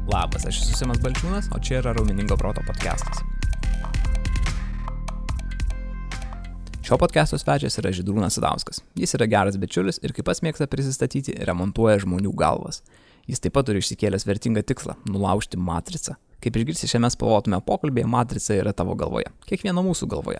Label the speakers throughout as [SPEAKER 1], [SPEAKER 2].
[SPEAKER 1] Labas, aš esu Simas Balčiūnas, o čia yra Raumeningo proto podcastas. Šio podcasto svečias yra Žydrūnas Sadauskas. Jis yra geras bičiulis ir kaip pats mėgsta prisistatyti, remontuoja žmonių galvas. Jis taip pat turi išsikėlęs vertingą tikslą – nulaužti matricą. Kaip išgirsi šiame spalvotume pokalbėje, matrica yra tavo galvoje, kiekvieno mūsų galvoje.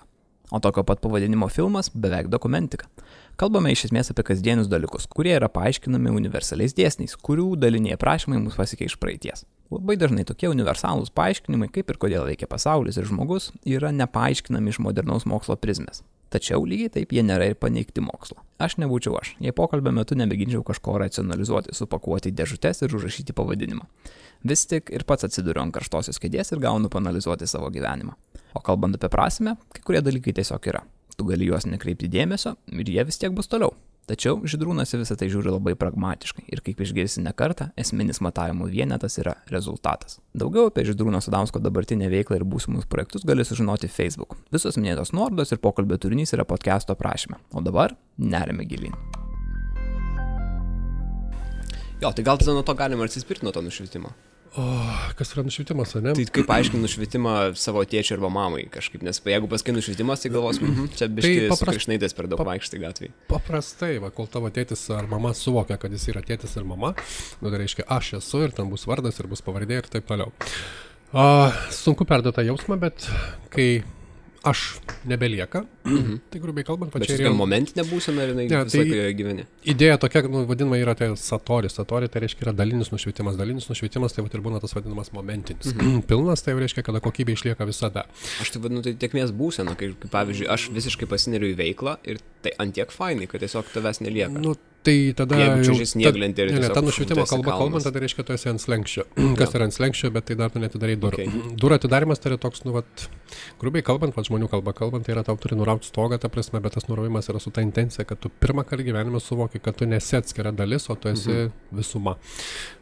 [SPEAKER 1] O tokio pat pavadinimo filmas beveik dokumentika. Kalbame iš esmės apie kasdienius dalykus, kurie yra paaiškinami universaliais dėsniais, kurių daliniai aprašymai mus pasiekia iš praeities. Labai dažnai tokie universalūs paaiškinimai, kaip ir kodėl veikia pasaulis ir žmogus, yra nepaaiškinami iš modernaus mokslo prizmės. Tačiau lygiai taip jie nėra ir paneigti mokslo. Aš nebūčiau aš, jei pokalbio metu nemėginčiau kažko racionalizuoti, supakuoti į dėžutes ir užrašyti pavadinimą. Vis tik ir pats atsiduriu ant karštosios kėdės ir gaunu paanalizuoti savo gyvenimą. O kalbant apie prasmę, kai kurie dalykai tiesiog yra. Tu gali juos nekreipti dėmesio ir jie vis tiek bus toliau. Tačiau Žydrūnas į visą tai žiūri labai pragmatiškai ir kaip išgirsi ne kartą, esminis matavimų vienetas yra rezultatas. Daugiau apie Žydrūno Sadausko dabartinę veiklą ir būsimus projektus gali sužinoti Facebook. Visos minėtos nuorodos ir pokalbio turinys yra podcast'o aprašyme. O dabar nerime gilyn.
[SPEAKER 2] Jo, tai gal tada nuo to galima atsispirti nuo to nušvitimo.
[SPEAKER 3] O, kas yra nušvitimas, ne?
[SPEAKER 2] Tai kaip aiškini nušvitimą savo tėčiui arba mamai kažkaip, nes jeigu pasakai nušvitimas, tai galvos, čia biški su krišnaitės per daug vaikštai gatvėje.
[SPEAKER 3] Paprastai, kol tavo tėtis ar mama suvokia, kad jis yra tėtis ir mama, tai reiškia aš esu ir ten bus vardas ir bus pavardė ir taip toliau. Sunku perduoti tą jausmą, bet kai aš nebelieka, tai grubiai kalbant,
[SPEAKER 2] bet čia yra momentinė būsena ir visą laiką gyveni.
[SPEAKER 3] Idėja tokia, vadinama, yra tai satori. Satori tai reiškia yra dalinis nušvitimas. Dalinis nušvitimas tai ir būna tas vadinamas momentinis. Pilnas tai reiškia, kada kokybė išlieka visada.
[SPEAKER 2] Aš tai vadinu, tai tiekmės būsena, kai pavyzdžiui, aš visiškai pasineriu į veiklą ir tai antiek fainai, kad tiesiog tavęs nelieka.
[SPEAKER 3] Tai tada
[SPEAKER 2] ta
[SPEAKER 3] nušvitimo kalba kalbant, tai reiškia, tu esi ant slenkščio. Kas yra ant slenkščio, bet tai dar tu netidarai durų. Durų atidarimas tai yra toks, grubiai kalbant, žmonių kalba kalbant, tai yra tau turi nurauti stogą, ta prasme, bet tas nuraujimas yra su ta intencija, kad tu pirmą kartą gyvenime suvoki, kad tu nesi atskira dalis, o tu esi visuma.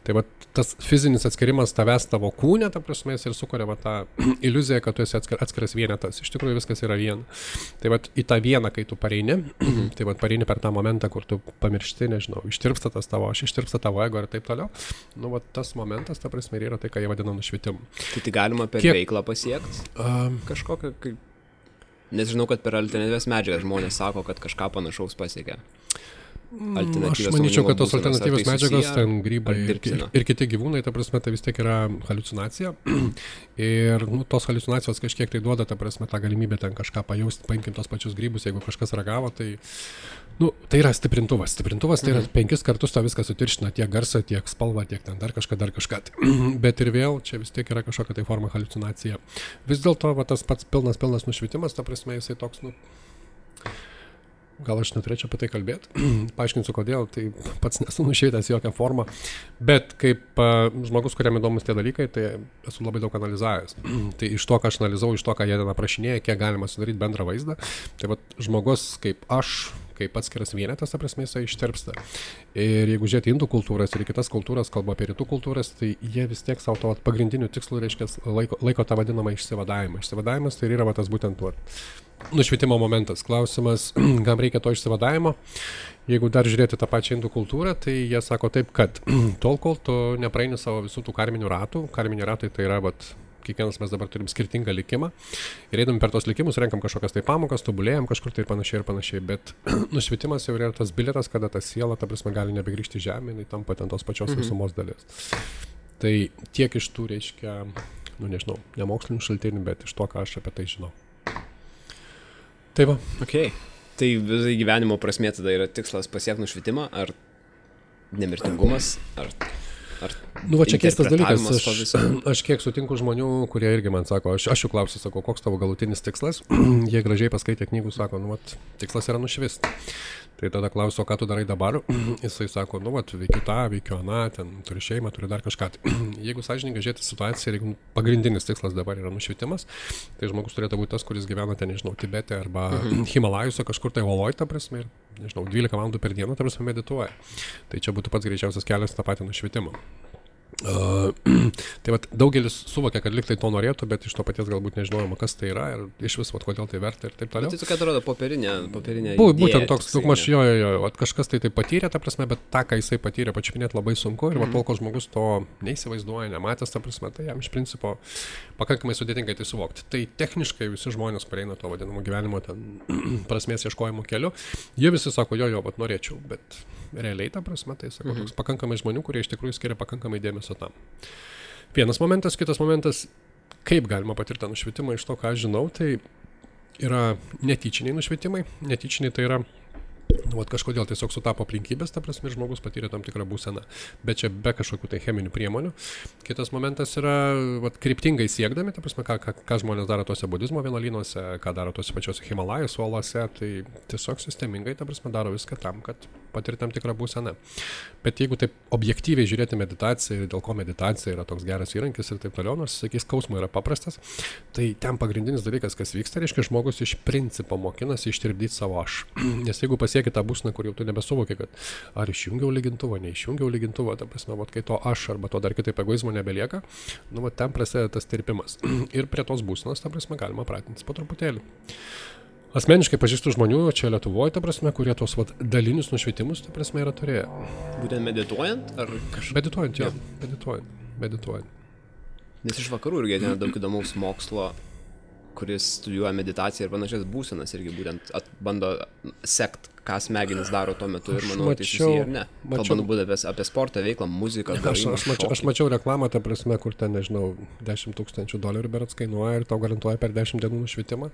[SPEAKER 3] Tai tas fizinis atskirimas tavęs tavo kūne, ta prasme, ir sukuria tą iliuziją, kad tu esi atskiras vienetas. Iš tikrųjų viskas yra viena. Tai į tą vieną, kai tu pareini, tai pareini per tą momentą, kur tu pamiršti, nežinau, ištirpsta tas tavo aš, ištirpsta tavo ego ir taip toliau. Tas momentas, ta prasme, yra tai, ką jie vadina nušvitimu.
[SPEAKER 2] Tai veiklą per veiklą pasiekti? Kažkokią, nes žinau, kad per alternatyvias medžiagas žmonės sako, kad kažką panašaus pasiekia.
[SPEAKER 3] Aš manyčiau, kad tos alternatyvios medžiagos, ten grybai ir kiti gyvūnai, ta prasme, tai vis tiek yra haliucinacija. Ir tos haliucinacijos kažkiek tai duoda, ta prasme, tą galimybę ten kažką pajausti, paimkim tos pačius grybus, jeigu kažkas ragavo, tai tai yra stiprintuvas. Stiprintovas tai yra 5 kartus to viską sutirština, tiek garsą, tiek spalvą, tiek ten dar kažką. Bet ir vėl čia vis tiek yra kažkokia tai forma haliucinacija. Vis dėlto tas pats pilnas nušvitimas, ta prasme, jisai toks, gal aš neturėčiau apie tai kalbėti, paaiškinsiu kodėl, tai pats nesu nušvitęs jokią formą, bet kaip žmogus, kuriam įdomus tie dalykai, tai esu labai daug analizavęs. Tai iš to, ką aš analizavau, iš to, ką jie ten aprašinėja, kiek galima sudaryti bendrą vaizdą, tai žmogus kaip aš, kaip atskiras vienetas, ta prasme, jisai ištirpsta. Ir jeigu žiūrėti indų kultūras ir kitas kultūras, kalba apie rytų kultūras, tai jie vis tiek savo to pagrindinių tikslų, reiškia, laiko tą vadinamą išsivadavimą. Išsivadavimas tai yra tas būtent nušvitimo momentas. Klausimas, kam reikia to išsivadavimo? Jeigu dar žiūrėti tą pačią indų kultūrą, tai jie sako taip, kad tol, kol tu nepraeini savo visų tų karminių ratų, karminiai ratai tai yra, kiekvienas mes dabar turim skirtingą likimą ir eidami per tos likimus, renkam kažkokias tai pamokas, tobulėjam kažkur tai ir panašiai, bet nušvitimas jau yra tas bilietas, kada ta siela, ta prasme, gali nebegrįžti žemė, jinai tampa ten tos pačios visumos dalis. Tai tiek iš tų, reiškia, nežinau, nemokslinių šaltinių, bet iš to, ką aš apie tai žinau. Tai va.
[SPEAKER 2] Okay. Tai visai gyvenimo prasmė tada yra tikslas pasiekti nušvitimą, ar nemirtingumas, ar
[SPEAKER 3] čia keistas dalykas, aš kiek sutinku žmonių, kurie irgi man sako, aš jų klausiu, sako, koks tavo galutinis tikslas, jie gražiai paskaitė knygų, sako, tikslas yra nušvisti. Tai tada klausiu, o ką tu darai dabar, jisai sako, veikiu tą, veikiu aną, ten turi šeimą, turi dar kažką. Jeigu sąžininkai žiūrėti situaciją, jeigu pagrindinis tikslas dabar yra nušvitimas, tai žmogus turėtų būti tas, kuris gyvena ten, nežinau, Tibete arba Himalajuose kažkur tai Oloj, ta prasme, ir, nežinau, 12 valandų per dieną, ta prasme, medituoja. Tai čia būtų pats greičiausias kelias tą patį nušvitimą. Tai vat, daugelis suvokia, kad liktai to norėtų, bet iš to paties galbūt nežinojama, kas tai yra ir iš vis, vat, kodėl tai verta ir taip toliau.
[SPEAKER 2] Tai tokia atrodo popierinė
[SPEAKER 3] Būtent toks, daugmaž jo, kas tai patyrė, ta prasme, bet tą, ką jisai patyrė, pačiupinėti labai sunku ir tol, kol žmogus to neįsivaizduoja, nematęs, ta prasme, tai jam iš principo pakankamai sudėtingai tai suvokti. Tai techniškai visi žmonės, kurie eina to vadinamo gyvenimo ten prasmės ieškojimo keliu, jie visi sako, jo, vat norėčiau, bet realiai, ta prasme, tai sako, toks pakankamai žmonių, kurie iš tikrųjų skiria pakankamai dėmesio tam. Vienas momentas, kitas momentas, kaip galima patirti nušvitimą iš to, ką aš žinau, tai yra netyčiniai nušvitimai. Netyčiniai tai yra, kažkodėl tiesiog sutapo aplinkybės, ta prasme, žmogus patyrė tam tikrą būseną, bet čia be kažkokių tai cheminių priemonių. Kitas momentas yra kryptingai siekdami, ta prasme, ką žmonės daro tuose budizmo vienuolynuose, ką daro tuose pačiuose Himalajos uolose, tai tiesiog sistemingai, ta prasme, daro viską tam, kad patirti tam tikrą būseną. Bet jeigu taip objektyviai žiūrėti meditaciją ir dėl ko meditacija yra toks geras įrankis ir taip toliau, nors, sakys, skausmo yra paprastas, tai ten pagrindinis dalykas, kas vyksta, reiškia, žmogus iš principo mokinasi ištirpdyti savo aš. Nes jeigu pasieki tą būseną, kur jau tu nebesuvoki, kad ar išjungiau lygintuvą, neišjungiau lygintuvą, ta prasme, kai to aš arba to dar kitaip egoizmo nebelieka, ten prasideda tas tirpimas. Ir prie tos būsenos, ta prasme, galima pratintis po truputėlį. Asmeniškai pažįstu žmonių čia Lietuvoje, ta prasme, kurie tos dalinius nušvitimus, ta prasme, yra turėję.
[SPEAKER 2] Būtent medituojant? Ar
[SPEAKER 3] Medituojant, jo. Medituojant.
[SPEAKER 2] Nes iš vakarų irgi ateina daug įdomaus mokslo, kuris studijuoja meditaciją ir panašias būsenas irgi būtent bando sekt, ką smegenys daro tuo metu ir manau, tai susiję ar ne. Kalbant būtent apie sportą, veiklą, muziką,
[SPEAKER 3] aš mačiau reklamą, ta prasme, kur ten, nežinau, $10,000 berods kainuoja ir tau garantuoja per 10 dienų nušvitimą.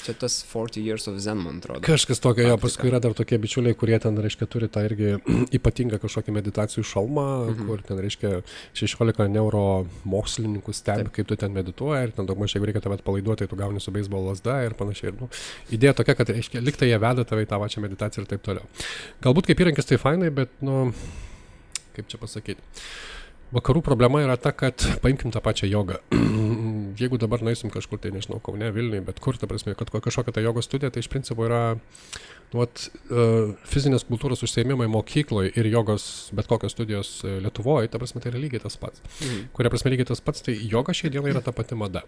[SPEAKER 2] Čia tas 40 years of Zen, man atrodo.
[SPEAKER 3] Kažkas tokio, jo, paskui yra dar tokie bičiuliai, kurie ten, reiškia, turi tą irgi ypatingą kažkokį meditacijų šalmą, kur ten, reiškia, 16 neuromokslininkų stebi, kaip tu ten medituoji ir ten daugmaž, jeigu reikia tave atpalaiduoti, tai tu gauni su beisbolo lazda ir panašiai. Idėja tokia, kad, reiškia, liktai jie veda tave į tą pačią meditaciją ir taip toliau. Galbūt kaip įrankis tai fainai, bet, kaip čia pasakyti. Vakarų problema yra ta, kad paimkim tą pačią jogą. Jeigu dabar nueisim kažkur, tai nežinau, Kaune, Vilniuje, bet kur, ta prasme, kad kažkokia ta jogos studija, tai iš principo yra fizinės kultūros užsiėmimai mokykloje ir jogos bet kokios studijos Lietuvoje, ta prasme, tai yra lygiai tas pats. Kuria prasme lygiai tas pats, tai joga šiai dienai yra ta pati mada.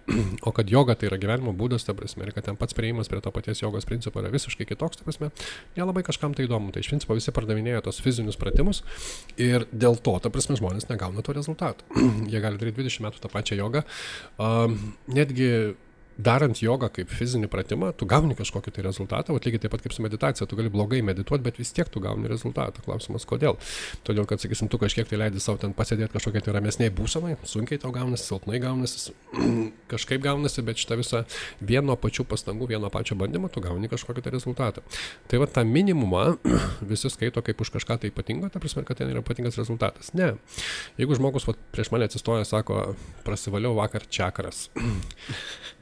[SPEAKER 3] O kad joga tai yra gyvenimo būdas, ta prasme, ir kad ten pats priėjimas prie to paties jogos principo yra visiškai kitoks, ta prasme, nelabai kažkam tai įdomu. Tai iš principo visi pardavinėja tos fizinius pratimus ir dėl to, ta prasme, žmonės negauna to rezultatų. Jie gali daryti 20 metų tą pačią jogą. Netgi darant jogą kaip fizinį pratimą, tu gauni kažkokį tai rezultatą, o lygiai taip pat kaip su meditacija, tu gali blogai medituoti, bet vis tiek tu gauni rezultatą. Klausimas, kodėl? Todėl, kad, sakysim, tu kažkiek tai leidi savo ten pasėdėti kažkokiai tai ramesniai būsenai, sunkiai tau gaunasi, silpnai gaunasi, kažkaip gaunasi, bet šitą visą vieno pačių pastangų, vieno pačio bandymo, tu gauni kažkokį tai rezultatą. Tai va tą minimumą visi skaito kaip už kažką tai ypatingo, ta prasme, kad ten yra ypatingas rezultatas. Ne. Jeigu žmogus prieš mane atsistoja, sako, prasivaliau vakar čakras.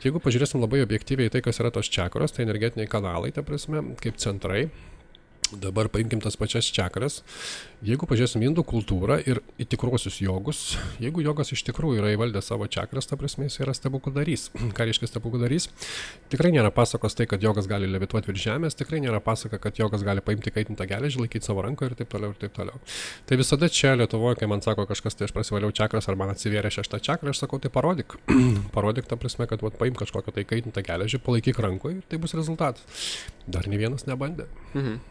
[SPEAKER 3] Jeigu pažiūrėsim labai objektyviai tai, kas yra tos čakros, tai energetiniai kanalai, ta prasme, kaip centrai. Dabar paimkim tas pačias čakras. Jeigu pažiūrėsim indų kultūrą ir į tikruosius jogus, jeigu jogas iš tikrųjų yra įvaldę savo čakras, ta prasme, jis yra stebukladarys. Ką reiškia stebukladarys? Tikrai nėra pasakos tai, kad jogas gali levituoti virš žemės, tikrai nėra pasaka, kad jogas gali paimti kaitintą geležį, laikyti savo rankoje ir taip toliau ir taip toliau. Tai visada čia Lietuvoje, kai man sako kažkas, tai aš prasivaliau čakras ar man atsivėrė 6 čakrą, aš sakau, tai parodyk. Parodyk, ta prasme, kad paimk kažkokią tai kaitintą geležį, palaikyk rankoje ir tai bus rezultatas. Dar ne vienas nebandė.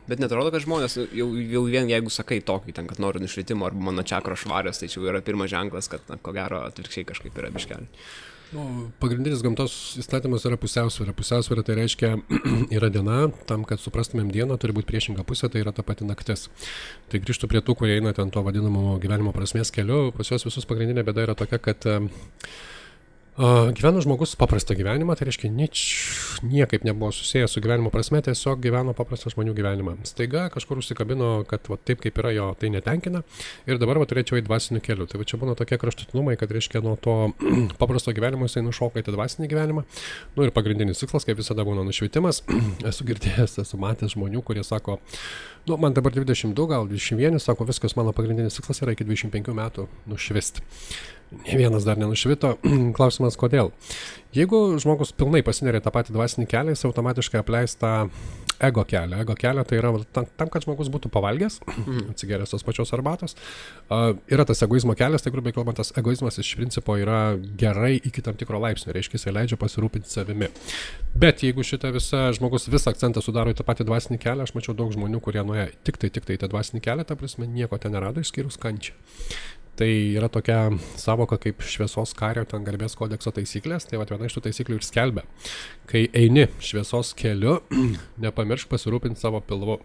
[SPEAKER 2] Bet netrodo, kad žmonės jau vien jeigu sakai tokį, ten, kad noriu nušvitimo arba mano čakros švarios, tai čia yra pirmas ženklas, kad ko gero atvirkščiai kažkaip yra biškelį.
[SPEAKER 3] Pagrindinis gamtos įstatymas yra pusiausvyrą. Pusiausvyrą tai reiškia yra diena, tam, kad suprastumėm dieną, turi būti priešinga pusė, tai yra ta pati naktis. Tai grįžtu prie tų, kurie eina ten to vadinamo gyvenimo prasmės keliu. Pas juos visus pagrindinė bėda yra tokia, kad gyveno žmogus paprastą gyvenimą, tai reiškia niekaip nebuvo susijęs su gyvenimo prasme, tiesiog gyveno paprastą žmonių gyvenimą. Staiga kažkur užsikabino, kad taip kaip yra jo, tai netenkina ir dabar turėčiau į dvasinių kelių. Tai čia būna tokie kraštutinumai, kad reiškia nuo to paprasto gyvenimo jisai nušoka į dvasinį gyvenimą. Ir pagrindinis tikslas, kaip visada, būna nušvitimas. Esu girdėjęs, esu matęs žmonių, kurie sako, man dabar 22, gal 21, sako, viskas, mano pagrindinis tikslas yra iki 25 metų nušvisti. ne vienas dar nenušvito. Klausimas, kodėl? Jeigu žmogus pilnai pasineria tą patį dvasinį kelią, jis automatiškai apleis tą ego kelią. Ego kelią tai yra tam, kad žmogus būtų pavalgęs, atsigeręs tos pačios arbatos. Yra tas egoizmo kelias, tai grubiai kalbant, tas egoizmas iš principo yra gerai iki tam tikro laipsnio, reiškia, jisai leidžia pasirūpinti savimi. Bet jeigu šitą žmogus visą akcentą sudaro į tą patį dvasinį kelią, aš mačiau daug žmonių, kurie nuėjo tik tai į tą dvasinį kelią, ta prasme, nieko ten nerado išskyrus kančią. Tai yra tokia savoka kaip šviesos kario, ten garbės kodekso taisyklės, tai viena iš tų taisyklių ir skelbia. Kai eini šviesos keliu, nepamiršk pasirūpinti savo pilvu.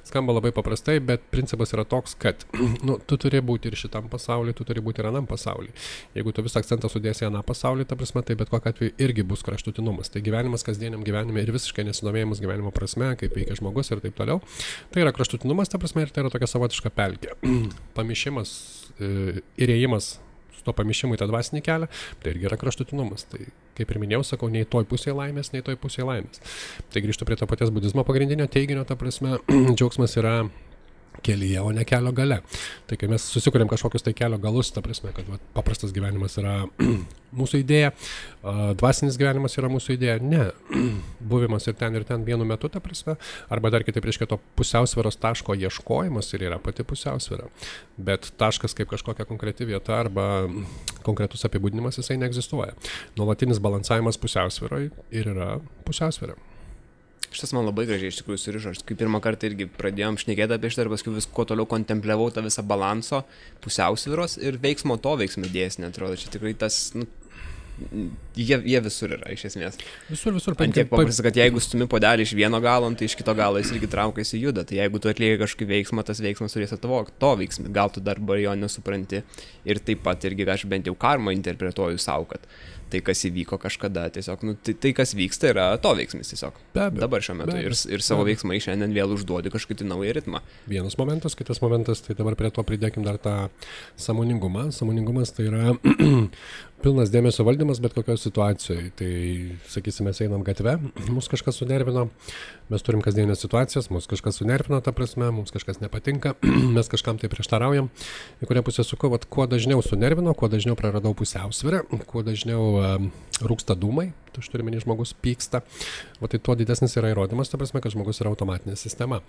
[SPEAKER 3] Skamba labai paprastai, bet principas yra toks, kad tu turi būti ir šitam pasauliu, tu turi būti ir anam pasauliu. Jeigu tu visą akcentą sudėsi į aną pasaulį, ta prasme, tai bet kokiu atveju irgi bus kraštutinumas. Tai gyvenimas kasdieniam gyvenime ir visiškai nesidomėjimas gyvenimo prasme, kaip veikia žmogus ir taip toliau. Tai yra kraštutinumas, ta prasme, ir tai yra tokia savotiška pelkė. Pamišimas ir ėjimas su to pamišimu į tą dvasinį kelią, tai irgi yra kraštutinumas. Tai, kaip ir minėjau, sakau, nei toj pusėje laimės, nei toj pusėje laimės. Tai grįžtu prie to paties budizmo pagrindinio teiginio, ta prasme, džiaugsmas yra kelyje, o ne kelio gale. Tai kai mes susikuriam kažkokius tai kelio galus, ta prasme, kad paprastas gyvenimas yra mūsų idėja, dvasinis gyvenimas yra mūsų idėja, ne. Buvimas ir ten vienu metu, ta prasme, arba dar kitaip reiškia to pusiausvyros taško ieškojimas ir yra pati pusiausvyra. Bet taškas kaip kažkokia konkreti vieta arba konkretus apibūdinimas jisai neegzistuoja. Nuolatinis balansavimas pusiausvyroje ir yra pusiausvyra.
[SPEAKER 2] Šitas man labai gražiai iš tikrųjų surišo. Aš kaip pirmą kartą irgi pradėjom šnekėti apie šitą ir paskui vis kuo toliau kontempliavau tą visą balanso, pusiausvyros ir veiksmo dėsnį, atrodo. Čia tikrai tas, jie visur yra, iš esmės.
[SPEAKER 3] Visur.
[SPEAKER 2] Ant tiek paprasta, kad jeigu stumi puodelį iš vieno galo, tai iš kito galo jis irgi traukiasi juda. Tai jeigu tu atlieki kažkokį veiksmą, tas veiksmas turės atvokti to veiksmą. Gal tu dar jo nesupranti. Ir taip pat irgi aš bent jau karmą interpretuoju savo, kad tai, kas įvyko kažkada, tiesiog, tai kas vyksta, yra to veiksmis tiesiog. Dabar šiuo metu. Ir savo veiksmai šiandien vėl užduodi kažkokį naują ritmą.
[SPEAKER 3] Vienas momentas, kitas momentas, tai dabar prie to pridėkim dar tą sąmoningumą. Sąmoningumas tai yra pilnas dėmesio valdymas bet kokioje situacijoje. Tai, sakysime, mes einam gatve, mus kažkas sunervino, mes turim kasdienės situacijas, mus kažkas sunervino, ta prasme, mums kažkas nepatinka, mes kažkam tai prieštaraujam. Į kurią pusę suku, kuo dažniau sunervino, kuo dažniau praradau pusiausvyrą, kuo dažniau rūksta dūmai, tu turi menį žmogus pyksta, tai tuo didesnis yra įrodymas, ta prasme, kad žmogus yra automatinė sistema.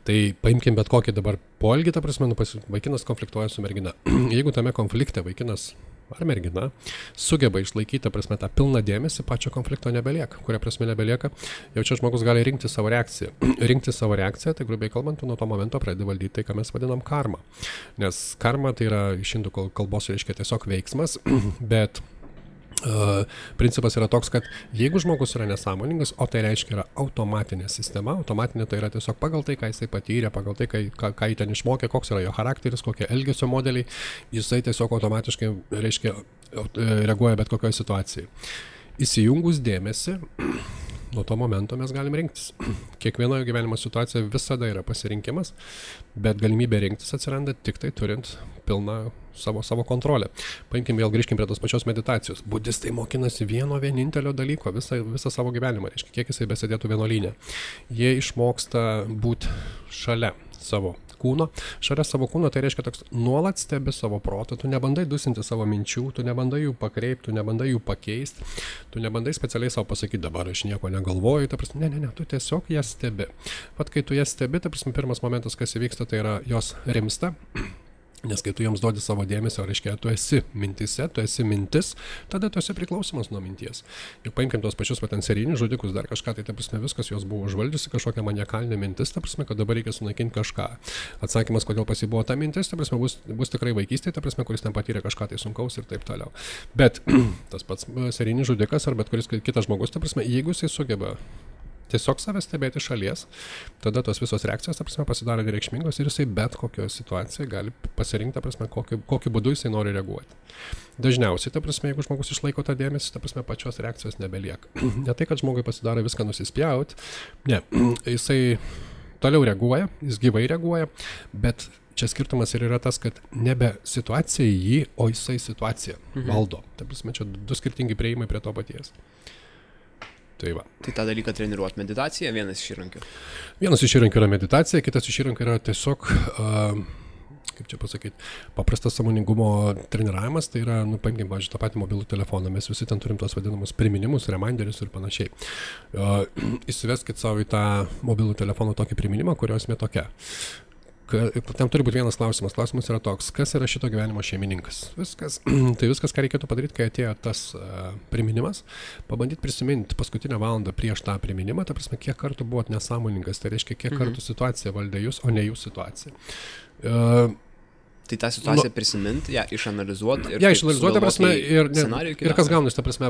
[SPEAKER 3] Tai paimkim bet kokį dabar poelgį, ta prasme, vaikinas konfliktuoja su mergina. Jeigu tame konflikte vaikinas ar mergina sugeba išlaikyti, prasme, tą pilną dėmesį, pačio konflikto nebelieka. Kuria prasme nebelieka, jau čia žmogus gali rinkti savo reakciją. Rinkti savo reakciją, tai grubiai kalbant, nuo to momento pradedi valdyti tai, ką mes vadinam karma. Nes karma tai yra iš indų kalbos reiškia tiesiog veiksmas, bet principas yra toks, kad jeigu žmogus yra nesąmoningas, o tai reiškia yra automatinė sistema, automatinė tai yra tiesiog pagal tai, ką jisai patyrė, pagal tai, ką jį ten išmokė, koks yra jo charakteris, kokie elgesio modeliai, jisai tiesiog automatiškai reiškia reaguoja bet kokioje situacijai. Įsijungus dėmesį, nuo to momento mes galim rinktis. Kiekvienoje gyvenimo situacijoje visada yra pasirinkimas, bet galimybė rinktis atsiranda tik tai turint pilną savo kontrolę. Paimkim vėl, grįžkim prie tos pačios meditacijos. Budistai mokinasi vieno vienintelio dalyko visą savo gyvenimą, reiškia, kiek jisai besėdėtų vienuolyne. Jie išmoksta būti šalia savo kūno. Šalia savo kūno tai reiškia toks nuolat stebi savo protą, tu nebandai dusinti savo minčių, tu nebandai jų pakreipti, tu nebandai jų pakeisti, tu nebandai specialiai savo pasakyti, dabar aš nieko negalvoju, ta prasme, ne, tu tiesiog jas stebi. Pat kai tu jas stebi, ta prasme, pirmas momentas, kas įvyksta, tai yra jos rimsta. Nes kai tu joms duodi savo dėmesio, reiškia, tu esi mintise, tu esi mintis, tada tu esi priklausomas nuo minties. Juk paimkim tos pačius serijinius žudikus, dar kažką, tai ta prasme viskas jos buvo užvaldžiusi, kažkokia maniakalinė mintis, ta prasme, kad dabar reikia sunaikinti kažką. Atsakymas, kodėl pas jį buvo ta mintis, ta prasme, bus tikrai vaikystė, ta prasme, kuris ten patyrė kažką tai sunkaus ir taip toliau. Bet tas pats serijinis žudikas ar bet kuris kitas žmogus, ta prasme, jeigu jisai sugeba tiesiog save stebėti šalies, tada tos visos reakcijos, ta prasme, pasidaro nereikšmingos ir jisai bet kokioje situacijoje gali pasirinkti, ta prasme, kokiu būdu jisai nori reaguoti. Dažniausiai, ta prasme, jeigu žmogus išlaiko tą dėmesį, ta prasme, pačios reakcijos nebelieka. Ne tai, kad žmogui pasidaro viską nusispjauti, ne, jisai toliau reaguoja, jis gyvai reaguoja, bet čia skirtumas ir yra tas, kad nebe situacija jį, o jisai situaciją valdo. Ta prasme, čia du skirtingi prieimai prie to paties.
[SPEAKER 2] Tai tą dalyką treniruoti meditacija, vienas iš įrankių.
[SPEAKER 3] Vienas iš įrankių yra meditacija, kitas iš įrankių yra tiesiog kaip čia pasakyti, paprastas sąmoningumo treniravimas, tai yra, paimkim, pavyzdžiui, tą patį mobilų telefoną, mes visi ten turim tos vadinamus priminimus, reminderius ir panašiai. Įsiveskit savo į tą mobilų telefoną tokį priminimą, kurio esmė tokia. Tam turi būti vienas klausimas. Klausimas yra toks, kas yra šito gyvenimo šeimininkas? Tai viskas, ką reikėtų padaryti, kai atėjo tas priminimas, pabandyti prisiminti paskutinę valandą prieš tą priminimą, ta prasme, kiek kartų buvot nesąmoningas, tai reiškia, kiek kartų situacija valdė jūs, o ne jūs situacija.
[SPEAKER 2] Tai tą situaciją prisiminti, ją išanalizuoti ir
[SPEAKER 3] išanalizuoti, ta prasme, ir kas gaunasi, ta prasme,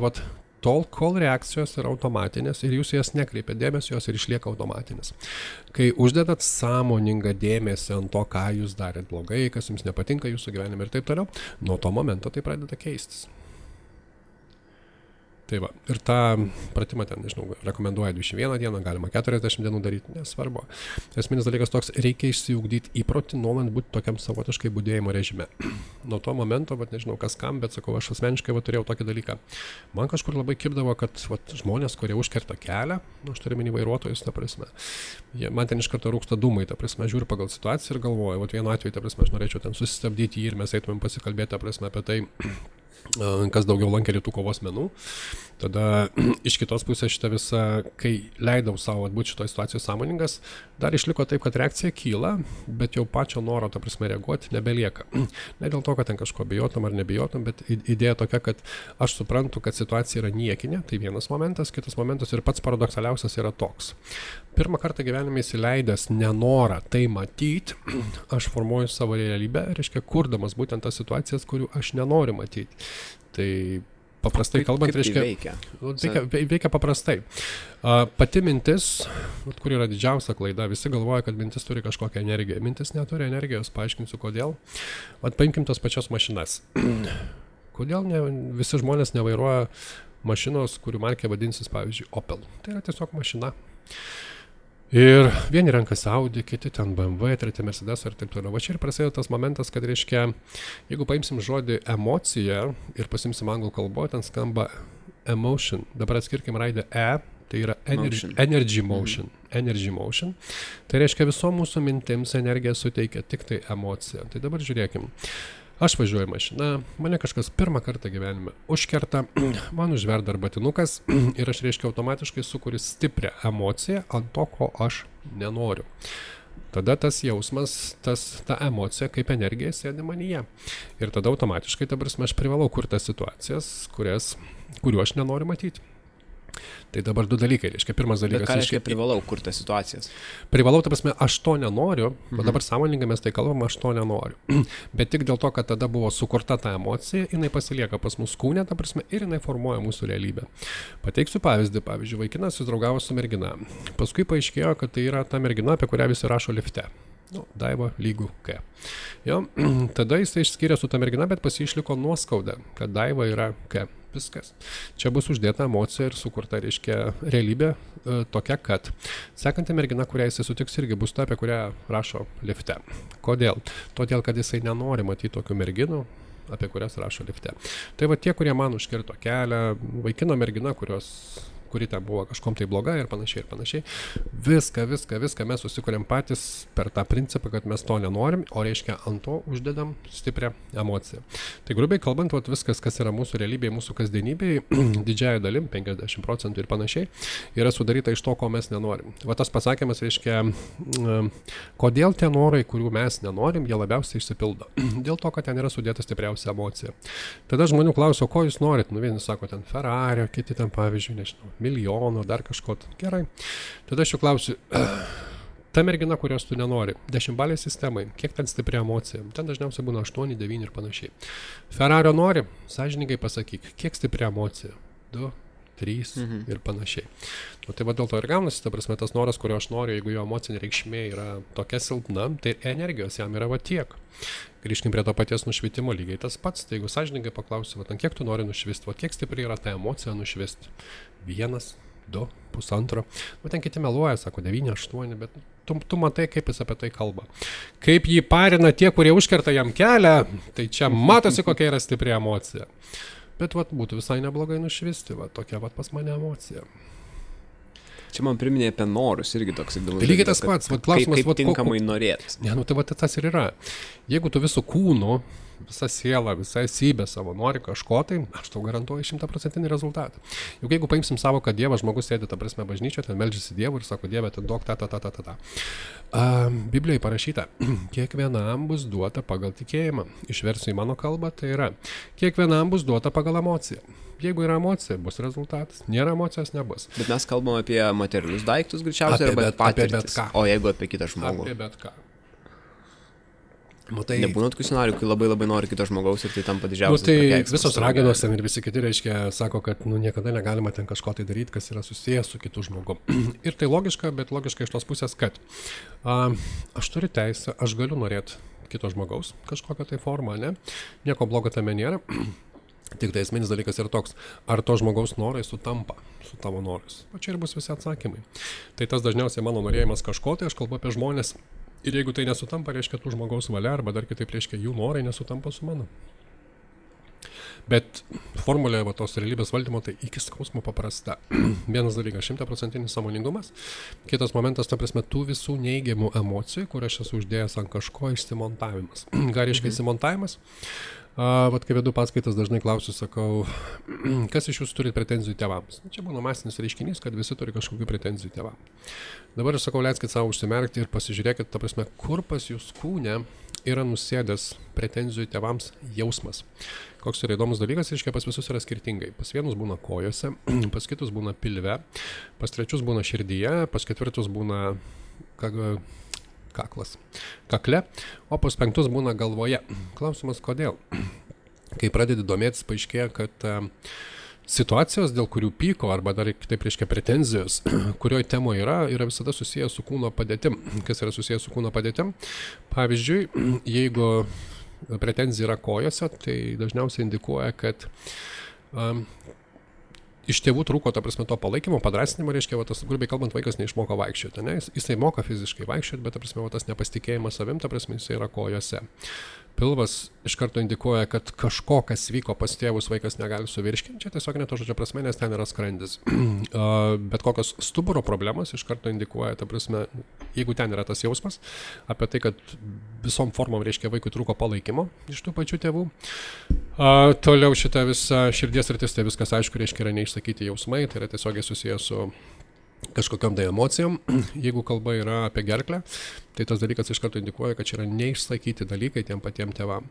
[SPEAKER 3] tol, kol reakcijos yra automatinės ir jūs jas nekreipia dėmesio, jos ir išlieka automatinės. Kai uždedat sąmoningą dėmesį ant to, ką jūs darėt blogai, kas jums nepatinka jūsų gyvenime ir taip toliau, nuo to momento tai pradeda keistis. Tai va, ir tą pratimą ten, nežinau, rekomenduoja 21 dieną, galima 40 dienų daryti, nesvarbu. Esminis dalykas toks, reikia išsiugdyti įprotį, nuolant būti tokiam savotiškai budėjimo režime. Nuo to momento, nežinau kas kam, bet sakau, aš asmeniškai turėjau tokį dalyką. Man kažkur labai kibdavo, kad žmonės, kurie užkerta kelią, aš turiu minį vairuotojus, ta prasme, man ten iš karto rūksta dūmai, ta prasme, žiūriu pagal situaciją ir galvoju, vienu atveju, ta prasme, aš norėčiau ten susistabdyti jį ir mes eitumėm pasikalbėti, ta prasme, apie tai, kas daugiau lankė rytų kovos menų. Tada iš kitos pusės šitą visą, kai leidau savo būti šitoje situacijoje sąmoningas, dar išliko taip, kad reakcija kyla, bet jau pačio noro, ta prasme, reaguoti nebelieka. Ne dėl to, kad ten kažko bijotum ar nebijotum, bet idėja tokia, kad aš suprantu, kad situacija yra niekinė, tai vienas momentas, kitas momentas ir pats paradoksaliausias yra toks. Pirmą kartą gyvenime įsileidęs nenorą tai matyti, aš formuoju savo realybę, reiškia, kurdamas būtent tas situacijas, kurių aš nenoriu matyti. Tai paprastai kalbant, reiškia, veikia paprastai. Pati mintis, kur yra didžiausia klaida, visi galvoja, kad mintis turi kažkokią energiją. Mintis neturi energijos, paaiškinsiu kodėl. Paimkim tas pačias mašinas. Kodėl visi žmonės nevairuoja mašinos, kurių markė vadinsis, pavyzdžiui, Opel. Tai yra tiesiog mašina. Ir vieni renkasi Audi, kiti ten BMW, treti Mercedes ir taip toliau. Va čia ir prasideda tas momentas, kad reiškia, jeigu paimsim žodį emocija ir pasimsim anglų kalbą, ten skamba emotion. Dabar atskirkim raidę E, tai yra energy motion. Energy motion. Tai reiškia, visom mūsų mintims energiją suteikia tik tai emocija. Tai dabar žiūrėkim. Aš važiuoju mašiną, mane kažkas pirmą kartą gyvenime užkerta, man užverda arbatinukas ir aš, reiškia, automatiškai sukuriu stiprią emociją ant to, ko aš nenoriu. Tada tas jausmas, ta emocija kaip energija sėdi manyje. Ir tada automatiškai, ta prasme, aš privalau kurti tas situacijas, kurių aš nenoriu matyti. Tai dabar du dalykai, reiškia, pirmas dalykas...
[SPEAKER 2] Bet ką reiškia privalau kurti situacijas?
[SPEAKER 3] Privalau, ta prasme, aš to nenoriu, bet dabar sąmoningai mes tai kalbam, aš to nenoriu. Bet tik dėl to, kad tada buvo sukurta ta emocija, jinai pasilieka pas mus kūne, ta prasme, ir jinai formuoja mūsų realybę. Pateiksiu pavyzdį, vaikinas susidraugavo su mergina. Paskui paaiškėjo, kad tai yra ta mergina, apie kurią visi rašo lifte. Daiva lygų K. Jo, tada jis išskyrė su ta mergina, bet pas jį išliko nuoskauda, kad Daiva yra K. Viskas. Čia bus uždėta emocija ir sukurta, reiškia, realybė tokia, kad sekanti mergina, kurią jisai sutiks, irgi bus ta, apie kurią rašo lifte. Kodėl? Todėl, kad jisai nenori matyti tokių merginų, apie kurias rašo lifte. Tai va tie, kurie man užkirto kelią, vaikino mergina, kuri ten buvo kažkom tai bloga ir panašiai ir panašiai. Viską mes susikuriam patys per tą principą, kad mes to nenorim, o reiškia ant to uždedam stiprią emociją. Tai grubiai kalbant, viskas, kas yra mūsų realybėje, mūsų kasdienybėje, didžiąją dalim, 50% ir panašiai, yra sudaryta iš to, ko mes nenorim. Va tas pasakymas reiškia, kodėl tie norai, kurių mes nenorim, jie labiausiai išsipildo. Dėl to, kad ten yra sudėta stipriausia emocija. Tada žmonių klauso, ko jūs norit? Vieni sako ten Ferrari, kiti ten pavyzdžiui, nežinau, milijonų, dar kažko. Gerai. Tada aš jau klausiu, ta mergina, kurios tu nenori, 10-balė sistemai, kiek ten stipri emocija? Ten dažniausiai būna 8, 9 ir panašiai. Ferrario nori, sąžiningai pasakyk, kiek stipri emocija? 2, 3 ir panašiai. Tai va dėl to ir gaunasi, ta prasme, tas noras, kurio aš noriu, jeigu jo emocinė reikšmė yra tokia silpna, tai energijos jam yra va tiek. Grįžkim prie to paties nušvitimo lygiai tas pats. Tai jeigu sąžiningai paklausiu, kiek tu nori nušvisti, kiek stipri yra ta emocija nušvisti? 1, 2, 1,5. Ten kiti meluoja, sako 9, 8, bet tu matai, kaip jis apie tai kalba. Kaip jį parina tie, kurie užkerta jam kelią, tai čia matosi, kokia yra stipri emocija. Bet būtų visai neblogai nušvisti, tokia pas mane emocija.
[SPEAKER 2] Čia man priminė apie norus irgi toks įdomus.
[SPEAKER 3] Tai lygiai tas pats, klausimas,
[SPEAKER 2] kaip tinkamai norėtis.
[SPEAKER 3] Ne, tai tas ir yra. Jeigu tu visų kūnų, visa siela, visa esybė savo nori kažko, tai aš tau garantuoju 100% rezultatą. Juk jeigu paimsim savo, kad Dievas, žmogus sėdi, ta prasme, bažnyčioje, ten meldžiasi Dievui ir sako, Dieve, ten duok ta. Biblijoje parašyta, kiekvienam bus duota pagal tikėjimą. Išversiu į mano kalbą, tai yra, kiekvienam bus duota pagal emociją. Jeigu yra emocija, bus rezultatas. Nėra emocijos, nebus.
[SPEAKER 2] Bet mes kalbam apie materialius daiktus greičiausiai, arba patirtis. O jeigu apie kitą žmogų?
[SPEAKER 3] Apie bet ką.
[SPEAKER 2] Matai, nebūna tokių scenarijų, kai labai nori kito žmogaus ir tai tampa didžiausias
[SPEAKER 3] prakeiksmas. Visos raganos ten ir visi kiti, reiškia, sako, kad niekada negalima ten kažko tai daryti, kas yra susijęs su kitu žmogu. Ir tai logiška, bet logiška iš tos pusės, kad aš turiu teisę, aš galiu norėti kito žmogaus kažkokią tai formą, ne? Nieko blogo tame nėra. Tik tai esminis dalykas yra toks, ar to žmogaus norai sutampa su tavo norais. O čia ir bus visi atsakymai. Tai tas dažniausiai mano norėjimas kažko, tai aš kalbu apie žmonės. Ir jeigu tai nesutampa, reiškia tų žmogaus valia, arba dar kitaip reiškia jų norai nesutampa su mano. Bet formulė tos realybės valdymo tai iki skausmo paprasta. Vienas dalykas 100% sąmoningumas. Kitas momentas, ta prasme, tų visų neigiamų emocijų, kur aš esu uždėjęs ant kažko išsimontavimas. Ką reiškia išsimontavimas? Vat kai vedu paskaitas, dažnai klausiu, sakau, kas iš jūsų turi pretenzijų tėvams? Čia būna masinis reiškinys, kad visi turi kažkokių pretenzijų tėvams. Dabar aš sakau, leiskit savo užsimerkti ir pasižiūrėkit, ta prasme, kur pas jūs kūne yra nusėdęs pretenzijų tėvams jausmas. Koks yra įdomus dalykas, reiškia, pas visus yra skirtingai. Pas vienus būna kojose, pas kitus būna pilve, pas trečius būna širdyje, pas ketvirtus būna kakle, o pas penktus būna galvoje. Klausimas, kodėl? Kai pradedi domėtis, paaiškėja, kad situacijos, dėl kurių pyko, arba dar kitaip reiškia pretenzijos, kurioje temoje yra visada susijęs su kūno padėtim. Kas yra susijęs su kūno padėtim? Pavyzdžiui, jeigu pretenzija yra kojose, tai dažniausiai indikuoja, kad iš tėvų trūko, ta prasme, to palaikymo, padrasinimo, reiškia, va, tas, grubiai kalbant, vaikas neišmoko vaikščioti, ne? Jisai moka fiziškai vaikščioti, bet, ta prasme, va, tas nepasitikėjimas savim, ta prasme, jisai yra kojose. Pilvas iš karto indikuoja, kad kažko, kas vyko pas tėvus, vaikas negali suvirškinti, čia tiesiog ne to žodžio prasme, nes ten yra skrandis. Bet kokios stuburo problemos iš karto indikuoja, ta prasme, jeigu ten yra tas jausmas, apie tai, kad visom formom, reiškia, vaikui trūko palaikymo iš tų pačių tėvų. Toliau šita visa širdies rytis, tai viskas aišku, reiškia, yra neišsakyti jausmai, tai yra tiesiogiai susijęs su kažkokiam tai emocijom. Jeigu kalba yra apie gerklę, tai tas dalykas iš karto indikuoja, kad čia yra neišsakyti dalykai tiem patiem tėvam.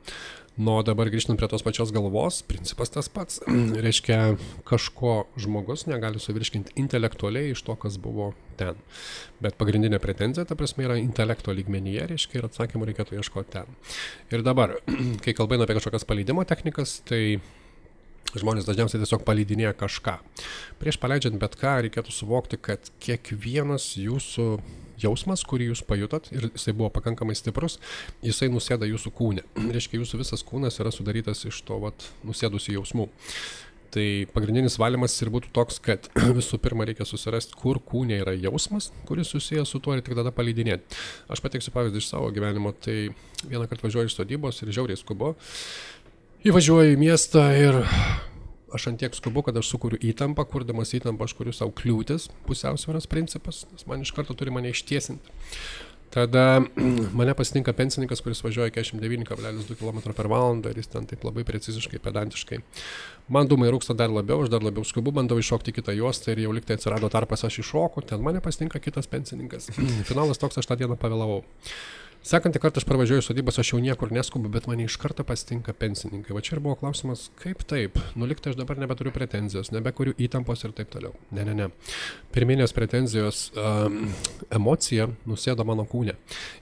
[SPEAKER 3] Nu, dabar grįžtant prie tos pačios galvos, principas tas pats. Reiškia, kažko žmogus negali suvirškinti intelektualiai iš to, kas buvo ten. Bet pagrindinė pretenzija, ta prasme, yra intelekto lygmenyje, reiškia, ir atsakymų reikėtų ieškoti ten. Ir dabar, kai kalbame apie kažkokias paleidimo technikas, tai žmonės dažniausiai tiesiog paleidinėja kažką. Prieš paleidžiant bet ką reikėtų suvokti, kad kiekvienas jūsų jausmas, kurį jūs pajutot, ir jisai buvo pakankamai stiprus, jisai nusėda jūsų kūne. Reiškia, jūsų visas kūnas yra sudarytas iš to nusėdusių jausmų. Tai pagrindinis valymas ir būtų toks, kad visų pirma reikia susirasti, kur kūne yra jausmas, kuris susijęs su tuo, ir tik tada paleidinėti. Aš pateiksiu pavyzdį iš savo gyvenimo, tai vieną kartą važiuoju iš sodybos ir žiauriai skubu. Įvažiuoju į miestą ir aš antiek skubu, kad aš sukuriu įtampą, kurdamas įtampą aš kuriu savo kliūtis, pusiausvyros principas, nes man iš karto turi mane ištiesinti. Tada mane pasitinka pensininkas, kuris važiuoja 49,2 km/h ir jis ten taip labai preciziškai, pedantiškai. Man dūmai rūksta dar labiau, aš dar labiau skubu, bandau iššokti kitą juostą ir jau liktai atsirado tarpas, aš iššoku, ten mane pasitinka kitas pensininkas. Finalas toks, aš tą dieną pavėlavau. Sekantį kartą aš parvažiuoju sodybas, aš jau niekur neskubu, bet mane iš karto pasitinka pensininkai. Va čia ir buvo klausimas, kaip taip? Nu, liktai aš dabar nebeturiu pretenzijos, nebekuriu įtampos ir taip toliau. Ne. Pirminės pretenzijos emocija nusėdo mano kūne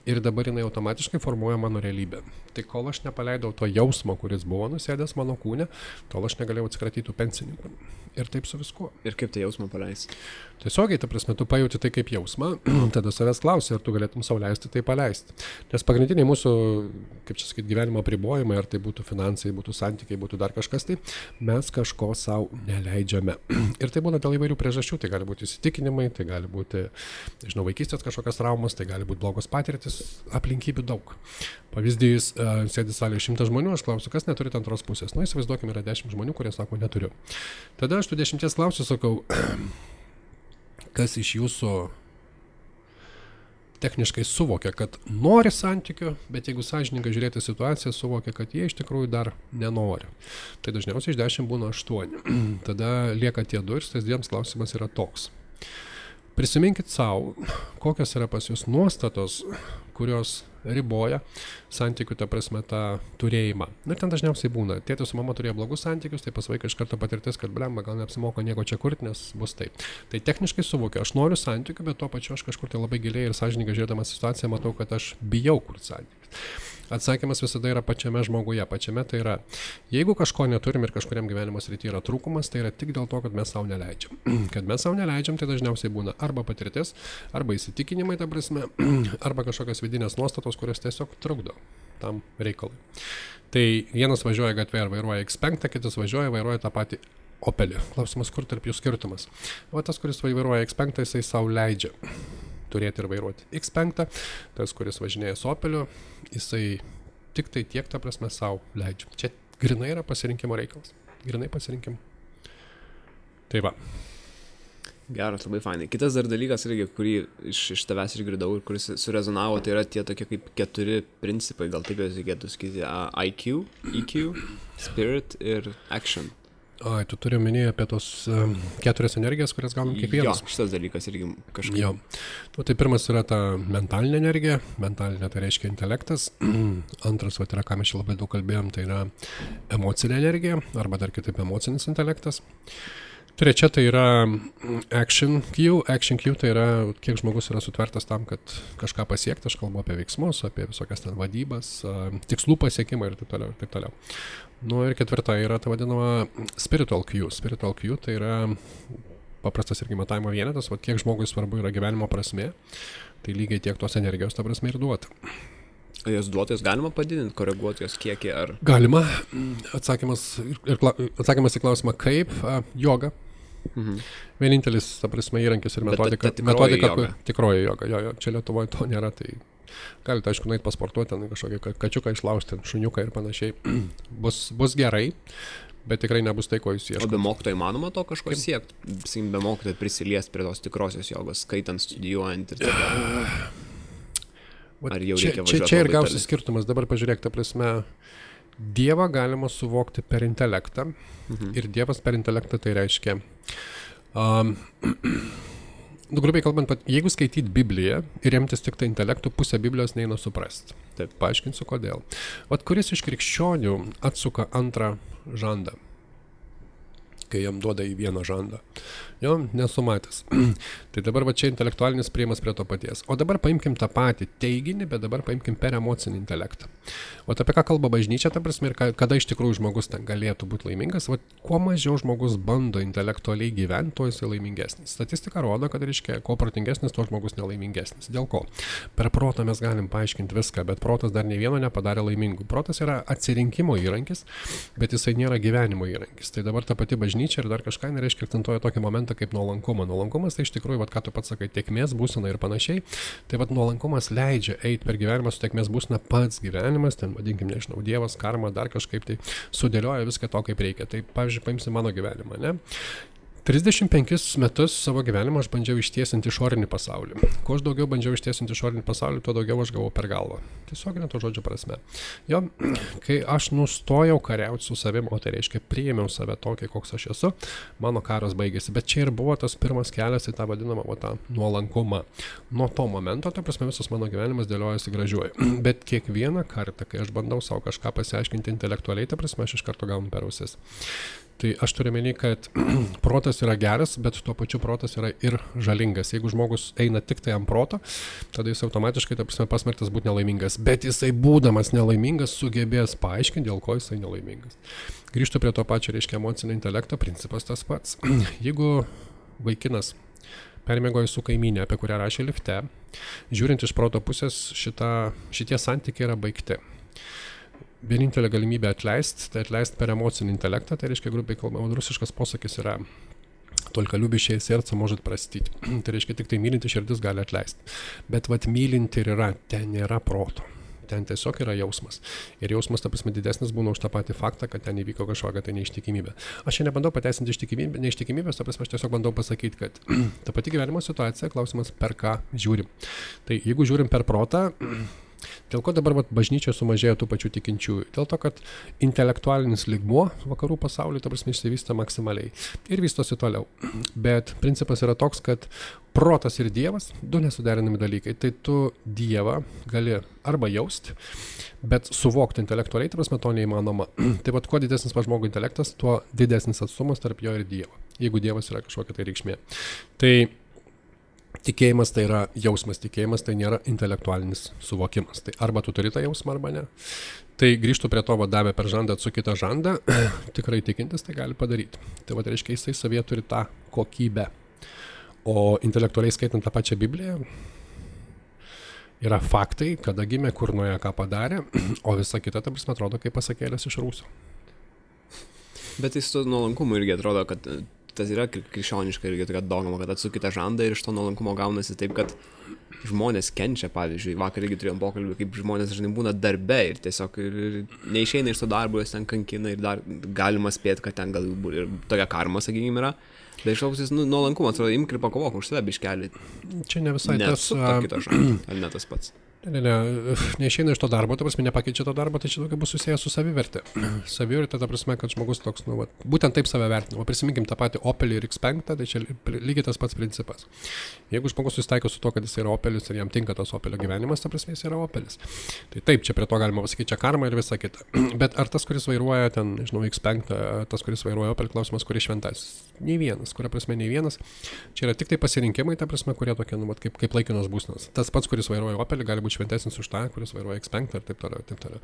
[SPEAKER 3] ir dabar jinai automatiškai formuoja mano realybę. Tai kol aš nepaleidau to jausmo, kuris buvo nusėdęs mano kūne, tol aš negalėjau atsikratyti tų pensininkų. Ir taip su viskuo.
[SPEAKER 2] Ir kaip tai jausmą paleisti?
[SPEAKER 3] Tiesiogiai, ta prasme, tu pajauti tai kaip jausmą, tada savęs klausi, ar tu galėtum sau leisti tai paleisti. Nes pagrindiniai mūsų, kaip čia sakyti, gyvenimo apribojimai, ar tai būtų finansai, būtų santykiai, būtų dar kažkas, tai mes kažko sau neleidžiame. Ir tai būna dėl įvairių priežasčių, tai gali būti įsitikinimai, tai gali būti, nežinau, vaikystės kažkokios traumos, tai gali būti blogos patirtis, aplinkybių daug. Pavyzdys, sėdi salėje 100 žmonių, aš klausiu, kas neturi antros pusės. Nu, įsivaizduokime, yra 10 žmonių, kurie sako, neturiu. Tada aš tų 10 klausiu, sakau, kas iš jūsų techniškai suvokia, kad nori santykių, bet jeigu sąžininkai žiūrėti situaciją, suvokia, kad jie iš tikrųjų dar nenori. Tai dažniausiai iš 10 būna 8. Tada lieka tie 2 ir tas 2 klausimas yra toks. Prisiminkit savo, kokios yra pas jūs nuostatos, kurios riboja santykių, ta prasme, tą turėjimą. Ir ten dažniausiai būna. Tėtis su mama turėjo blogus santykius, tai pas vaiką iš karto patirtis, kad blemba, gal neapsimoka nieko čia kurti, nes bus taip. Tai techniškai suvokiu, aš noriu santykių, bet tuo pačiu aš kažkur tai labai giliai ir sąžininkai žiūrėdamas situaciją matau, kad aš bijau kurti santykius. Atsakymas visada yra pačiame žmoguje, pačiame tai yra, jeigu kažko neturim ir kažkuriam gyvenimo srityje yra trūkumas, tai yra tik dėl to, kad mes savo neleidžiam. Kad mes savo neleidžiam, tai dažniausiai būna arba patirtis, arba įsitikinimai, ta prasme, arba kažkokios vidinės nuostatos, kurios tiesiog trukdo tam reikalui. Tai vienas važiuoja gatvėje ir vairuoja X5, kitas vairuoja tą patį Opelį. Klausimas, kur tarp jų skirtumas? O tas, kuris vairuoja X5, jisai savo leidžia turėti ir vairuoti X5, tas, kuris važinėja su Opeliu, jisai tik tai tiek, ta prasme, savo leidžia. Čia grinai yra pasirinkimo reikalas. Grinai pasirinkimo. Tai va.
[SPEAKER 2] Geras, labai fainai. Kitas dar dalykas, irgi, kurį iš tavęs išgirdau ir kuris surezonavo, tai yra tie tokie kaip 4 principai, gal taip jau reikėtų sakyti, IQ, EQ, Spirit ir Action.
[SPEAKER 3] Ai, tu turi minėti apie tos 4 energijas, kurias gaunam kiekvienas.
[SPEAKER 2] Jo, šitas dalykas irgi kažkaip.
[SPEAKER 3] Jo. Nu, tai pirmas yra ta mentalinė energija. Mentalinė tai reiškia intelektas. Antras, va, yra, ką mes čia labai daug kalbėjom, tai yra emocinė energija, arba dar kitaip emocinis intelektas. Trečia tai yra Action Q. Action Q tai yra, kiek žmogus yra sutvertas tam, kad kažką pasiekti. Aš kalbu apie veiksmus, apie visokias ten vadybas, tikslų pasiekimą ir taip toliau, ir taip toliau. Nu ir ketvirta yra ta vadinama Spiritual Q. Spiritual Q tai yra paprastas irgi matavimo vienetas, va kiek žmogui svarbu yra gyvenimo prasmė, tai lygiai tiek tos energijos ta prasme ir duota.
[SPEAKER 2] Jos duotojus galima padidinti, koreguoti jos kiekį ar...
[SPEAKER 3] Galima. Atsakymas į klausimą kaip, joga. Vienintelis, ta prasme, įrankis ir metodika. Tikroji joga. Jo, čia Lietuvoje to nėra, tai galite, aišku, nueiti pasportuoti, kažkokį kačiuką išlaužti, šuniuką ir panašiai. Bus gerai, bet tikrai nebus tai, ko jūs ieškote.
[SPEAKER 2] O be mokytojo įmanoma to kažko siekti? Be mokytojo prisiliesti prie tos tikrosios jogos, skaitant, studijuojant ir taip. Ar jau reikia važiuoti?
[SPEAKER 3] Čia ir gausi skirtumas. Dabar pažiūrėk, ta prasme, Dievą galima suvokti per intelektą. Ir Dievas per intelektą tai reiškia... grubiai kalbant, jeigu skaityt Bibliją ir remtis tik tai intelektų, pusę Biblijos neina suprasti. Taip, paaiškinsiu kodėl. Vat kuris iš krikščionių atsuka antrą žandą, kai jam duoda į vieną žandą. Jo, nesu matęs. Tai dabar va čia intelektualinis prieimas prie to paties. O dabar paimkim tą patį teiginį, bet dabar paimkim per emocinį intelektą. O apie ką kalba bažnyčia, ta prasme, ir kada iš tikrųjų žmogus ten galėtų būti laimingas, va kuo mažiau žmogus bando intelektualiai gyventi, tuo jisai laimingesnis. Statistika rodo, kad reiškia, kuo protingesnis, tuo žmogus nelaimingesnis. Dėl ko? Per protą mes galim paaiškinti viską, bet protas dar nei vieno nepadarė laimingų. Protas yra atsirinkimo įrankis, bet jisai nėra gyvenimo įrankis. Tai dabar ta pati bažnyčia ir dar kažką nereiškia akcentuoja tokį momentą kaip nuolankumą. Nuolankumas tai iš tikrųjų, vat, ką tu pats sakai, tėkmės būsena ir panašiai. Tai vat nuolankumas leidžia eiti per gyvenimą su tėkmės būsena pats gyvenimas, ten vadinkim, nežinau, Dievas, karma, dar kažkaip tai sudėlioja viską to, kaip reikia. Tai pavyzdžiui, paimsi mano gyvenimą, ne? 35 metus savo gyvenimą aš bandžiau ištiesinti išorinį pasaulį. Kuo aš daugiau bandžiau ištiesinti išorinį pasaulį, tuo daugiau aš gavau per galvą. Tiesiog ne to žodžio prasme. Jo, kai aš nustojau kariauti su savim, o tai reiškia priėmiau save tokį, koks aš esu, mano karas baigėsi. Bet čia ir buvo tas pirmas kelias į tą vadinamą tą nuolankumą. Nuo to momento, ta prasme, visas mano gyvenimas dėliojasi gražiuoju. Bet kiekvieną kartą, kai aš bandau savo kažką pasiaiškinti intelektualiai, ta prasme, aš iš karto gaunu per ausis. Tai aš turiu menį, kad protas yra geras, bet tuo pačiu protas yra ir žalingas. Jeigu žmogus eina tik tai ant proto, tada jis automatiškai, ta prasme, pasmerktas būti nelaimingas. Bet jisai būdamas nelaimingas sugebės paaiškinti, dėl ko jisai nelaimingas. Grįžtu prie to pačio, reiškia, emocinio intelekto, principas tas pats. Jeigu vaikinas permiegojo su kaimynė, apie kurią rašė lifte, žiūrint iš proto pusės, šitie santykiai yra baigti. Vienintelė galimybė atleisti, tai atleisti per emocinį intelektą, tai reiškia, grubiai kalbama, rusiškas posakis yra только любящее сердце может простить. Tai reiškia, tik tai mylinti širdis gali atleisti. Bet vat mylinti ir yra, ten nėra proto. ten tiesiog yra jausmas. Ir jausmas, ta prasme, didesnis būna už tą patį faktą, kad ten įvyko kažkokia tai neištikimybė. Aš čia nebandau pateisinti neištikimybės, ta prasme, aš tiesiog bandau pasakyti, kad ta pati gyvenimo situacija, klausimas, per ką žiūrim. Tai jeigu žiūrim per protą, dėl ko dabar bažnyčioje sumažėjo tų pačių tikinčiųjų? Dėl to, kad intelektualinis lygmuo vakarų pasaulyje, ta prasme, išsivysta maksimaliai ir vystosi toliau. Bet principas yra toks, kad protas ir Dievas, du nesuderinami dalykai. Tai tu Dievą gali arba jausti, bet suvokti intelektualiai, ta prasme, to neįmanoma. Tai vat, kuo didesnis žmogų intelektas, tuo didesnis atstumas tarp jo ir Dievo, jeigu Dievas yra kažkokia tai reikšmė. Tai tikėjimas tai yra jausmas, tikėjimas tai nėra intelektualinis suvokimas. Tai arba tu turi tą jausmą, arba ne. Tai grįžtų prie to, davė per žandą, atsuk kitą žandą, tikrai tikintis tai gali padaryti. Tai va, reiškia, jisai savyje turi tą kokybę. O intelektualiai skaitant tą pačią Bibliją, yra faktai, kada gimė, kur nuėjo, ką padarė, o visa kita, ta prasme, atrodo kaip pasakėlės iš rūsio.
[SPEAKER 2] Bet jis to nuolankumo irgi atrodo, kad tas yra krikščioniška irgi tokia dogma, kad atsukite žandą ir iš to nuolankumo gaunasi taip, kad žmonės kenčia, pavyzdžiui, vakar irgi turėjom pokalbį, kaip žmonės dažnai būna darbe ir tiesiog neišeina iš to darbo, jos ten kankina ir dar galima spėti, kad ten gal ir tokia karma, sakykime, yra. Bet išlaukusis nuolankumas, atrodo, imk ir pakovok už save biškelį.
[SPEAKER 3] Čia ne visai tas...
[SPEAKER 2] Kitą žandą, ar ne tas pats?
[SPEAKER 3] Neišeina iš to darbo, ta prasme, nepakeičia to darbo, tai čia daugiau bus susijęs su savivertė. Savivertė, ta prasme, kad žmogus toks, būtent taip save vertina. Prisiminkim tą patį Opelį ir X5, tai čia lygiai tas pats principas. Jeigu žmogus susitaiko su to, kad jis yra Opelis ir jam tinka tas Opelio gyvenimas, ta prasme, jis yra Opelis. Tai taip, čia prie to galima pasakyti, čia karma ir visa kita. Bet ar tas, kuris vairuoja ten, žinau, X5, tas, kuris vairuoja Opelį, klausimas, kuris šventas? Nei vienas, kuria prasme, nei vienas. Čia yra tik tai pasirinkimai, ta prasme, kurie tokie, kaip laikinos būsnos. Tas pats, kuris vairuoja Opelį, gali būti šventesnis už tą, kuris vairuoja X5 ir taip toliau, taip toliau.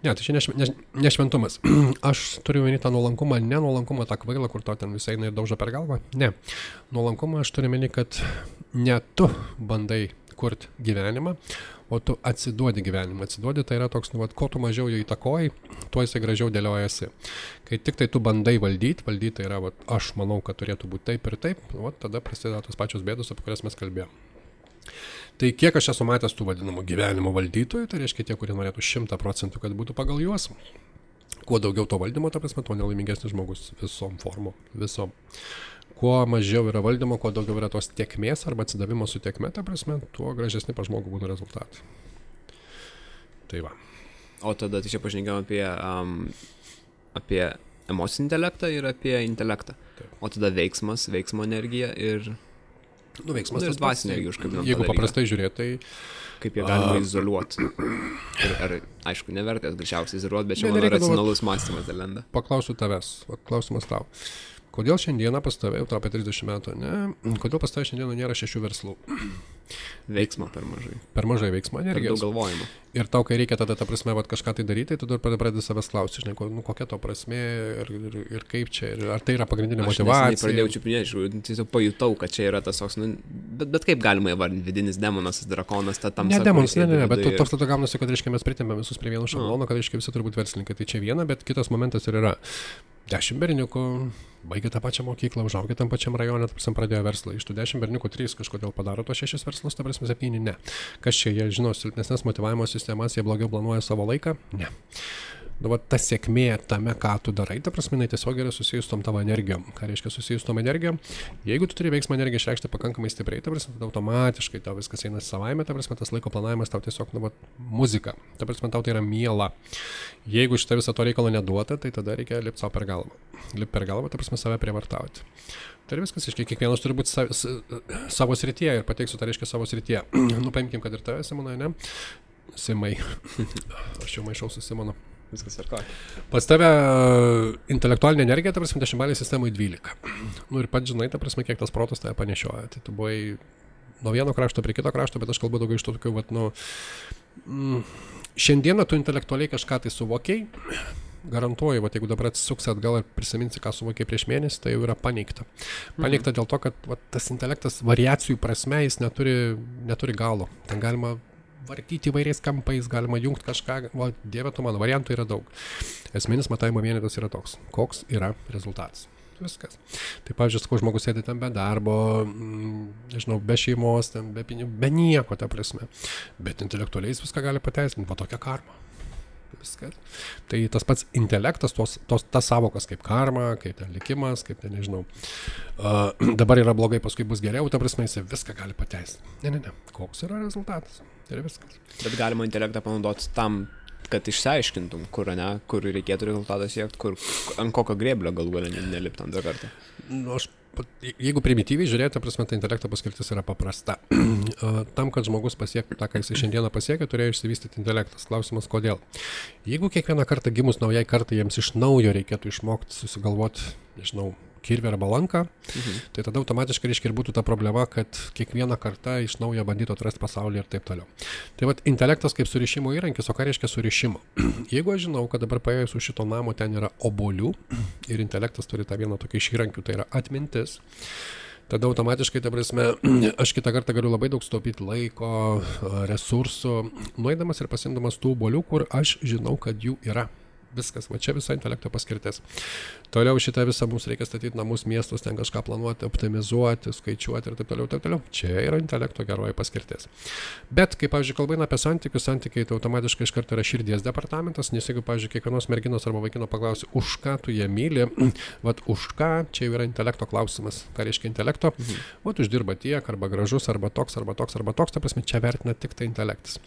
[SPEAKER 3] Ne, tai čia nešventumas. Aš turiu meni tą nuolankumą, ne nuolankumą tą kvailą, kur to ten visai eina ir daužo per galvą. Ne. Nuolankumą aš turiu meni, kad ne tu bandai kurti gyvenimą, o tu atsiduodi gyvenimą. Atsiduodi tai yra toks, ko tu mažiau jo įtakoji, tuo jisai gražiau dėliojasi. Kai tik tai tu bandai valdyti tai yra, aš manau, kad turėtų būti taip ir taip, tada prasideda tos pačios bėdos, apie kurias mes kalbėjome. Tai kiek aš esu matęs tų vadinamų gyvenimo valdytojų, tai reiškia tie, kurie norėtų 100%, kad būtų pagal juos. Kuo daugiau to valdymo, ta prasme, tuo nelaimingesnis žmogus visom formom, visom. Kuo mažiau yra valdymo, kuo daugiau yra tos tiekmės arba atsidavimo su tiekme, ta prasme, tuo gražesni pa žmogų būtų rezultatai. Tai va.
[SPEAKER 2] O tada tai čia pašnekėjom apie emocinį intelektą ir apie intelektą. Taip. O tada veiksmo energija ir...
[SPEAKER 3] veiksmas
[SPEAKER 2] ir dvasinė energija užkabinam.
[SPEAKER 3] Jeigu paprastai žiūrėti, tai...
[SPEAKER 2] Kaip jie galima izoliuoti. Ir aišku, nevertės greičiausiai izoliuoti, bet čia mano racionalus mąstymas dalenda.
[SPEAKER 3] Paklausiu tavęs, klausimas tau. Kodėl šiandieną pas tave, jau tau apie 30 metų, ne? Kodėl pas tave šiandieną nėra 6 verslų?
[SPEAKER 2] Veiksmo per mažai.
[SPEAKER 3] Per mažai veiksmo energijos.
[SPEAKER 2] Per daug galvojimo.
[SPEAKER 3] Ir tau, kai reikia tada, ta prasme, kažką tai daryti, tu dar pradedi savęs klausti, žinai, kokia to prasmė ir kaip čia, ir ar tai yra pagrindinė motyvacija.
[SPEAKER 2] Aš pradėjau čiupinėti, tiesiog pajutau, kad čia yra tas toks, bet kaip galima įvardinti, vidinis demonas, drakonas, ta tamsa.
[SPEAKER 3] Ne demonas, ne, bet toks tada gaunasi, kad, reiškia, mes pritempėm visus prie vieno šablono, kad, reiškia, visi turi būti verslininkai. Tai čia viena, bet kitas momentas ir yra 10 berniukų, baigė tą pačią mokyklą, užaugė tam pačiam rajone, ta prasme, pradėjo verslą. Iš tų 10 berniukų 3 kažkodėl padaro tos 6 verslus, ta prasme 7 ne. Kas čia, jie žino silpnesnės motyvavimo sistemas, jie blogiau planuoja savo laiką? Ne. Dabar ta sėkmė tame, ką tu darai, ta prasme, tiesiog yra susijus tom tavo energijom. Ką reiškia susijus tom energijom? Jeigu tu turi veiksmą energiją išreikšti pakankamai stipriai, ta prasme, tada automatiškai tau viskas eina savaime, ta prasme, tas laiko planavimas tau tiesiog, muzika. Ta prasme, tau tai yra miela. Jeigu šitą visą to reikalo neduota, tai tada reikia lipti savo per galvą. Lipti per galvą, ta prasme, save prievartauti. Tai viskas, aiškiai, kiekvienas turi būti savo srityje ir pateiksiu, tai reiškia savo srityje. Paimkim, kad ir tave, Simonai, ne? Simai. Aš jau maišau su Simonu.
[SPEAKER 2] Viskas ar ką.
[SPEAKER 3] Pas tave intelektualinė energija, ta prasme, 10 sistemai 12. Ir pats žinai, ta prasme, kiek tas protas tave panešioja. Tai tu buvai nuo vieno krašto prie kito krašto, bet aš kalbu daugiau iš to tokių, šiandieną tu intelektualiai kažką tai suvokiai, garantuoju, jeigu dabar atsisuksi atgal ir prisiminsi, ką suvokiai prieš mėnesį, tai jau yra paneigta. Paneigta dėl to, kad tas intelektas variacijų prasme, jis neturi galo. Ten galima vartyti įvairiais kampais, galima jungti kažką, Dieve tu mano, variantų yra daug. Esminis matavimo vienetas yra toks, koks yra rezultatas. viskas. Tai, pavyzdžiui, sakau, žmogus sėdi ten be darbo, nežinau, be šeimos, ten, be pinigų, be nieko, ta prasme. Bet intelektualiai jis viską gali pateisinti, va tokia karma. Viskas. Tai tas pats intelektas, tas savokas kaip karma, kaip ten likimas, kaip ten, nežinau, dabar yra blogai, paskui bus geriau, ta prasme, jis viską gali pateisinti. Ne. Koks yra rezultatas? Tai yra viskas.
[SPEAKER 2] Bet galima intelektą panaudoti tam, kad išsiaiškintum, kur reikėtų rezultatą siekti, ant kokio grėblio galų galę nelipti antrą kartą.
[SPEAKER 3] Jeigu primityviai žiūrėti, ta prasme, tai intelekto paskirtis yra paprasta. Tam, kad žmogus pasiektų tą, ką jis šiandieną pasiekė, turėjo išsivystyti intelektas. Klausimas, kodėl? Jeigu kiekvieną kartą gimus naujai kartai jiems iš naujo reikėtų išmokti susigalvoti, nežinau, kirvį arba lanką, tai tada automatiškai reiškia ir būtų ta problema, kad kiekvieną kartą iš naujo bandytų atrasti pasaulį ir taip toliau. Tai vat intelektas kaip surišimo įrankis, o ką reiškia surišimo? Jeigu aš žinau, kad dabar paėjus už šito namo ten yra obuolių ir intelektas turi tą vieną tokį iš įrankių, tai yra atmintis, tada automatiškai, ta prasme, aš kitą kartą galiu labai daug sutaupyti laiko, resursų, nueidamas ir pasimdamas tų obuolių, kur aš žinau, kad jų yra. Viskas, va čia visa intelekto paskirtis. Toliau šitą visą mums reikia statyti namus, miestus, ten kažką planuoti, optimizuoti, skaičiuoti ir taip toliau, taip toliau. Čia yra intelekto geroji paskirtis. Bet, kai, pavyzdžiui, kalba eina apie santykiai, tai automatiškai iš karto yra širdies departamentas, nes jeigu, pavyzdžiui, kiekvienos merginos arba vaikino paklausi, už ką tu jie myli, vat už ką, čia jau yra intelekto klausimas. Ką reiškia intelekto? Vat uždirba tiek, arba gražus, arba toks, ta prasme, čia vertina tik tai intelektas.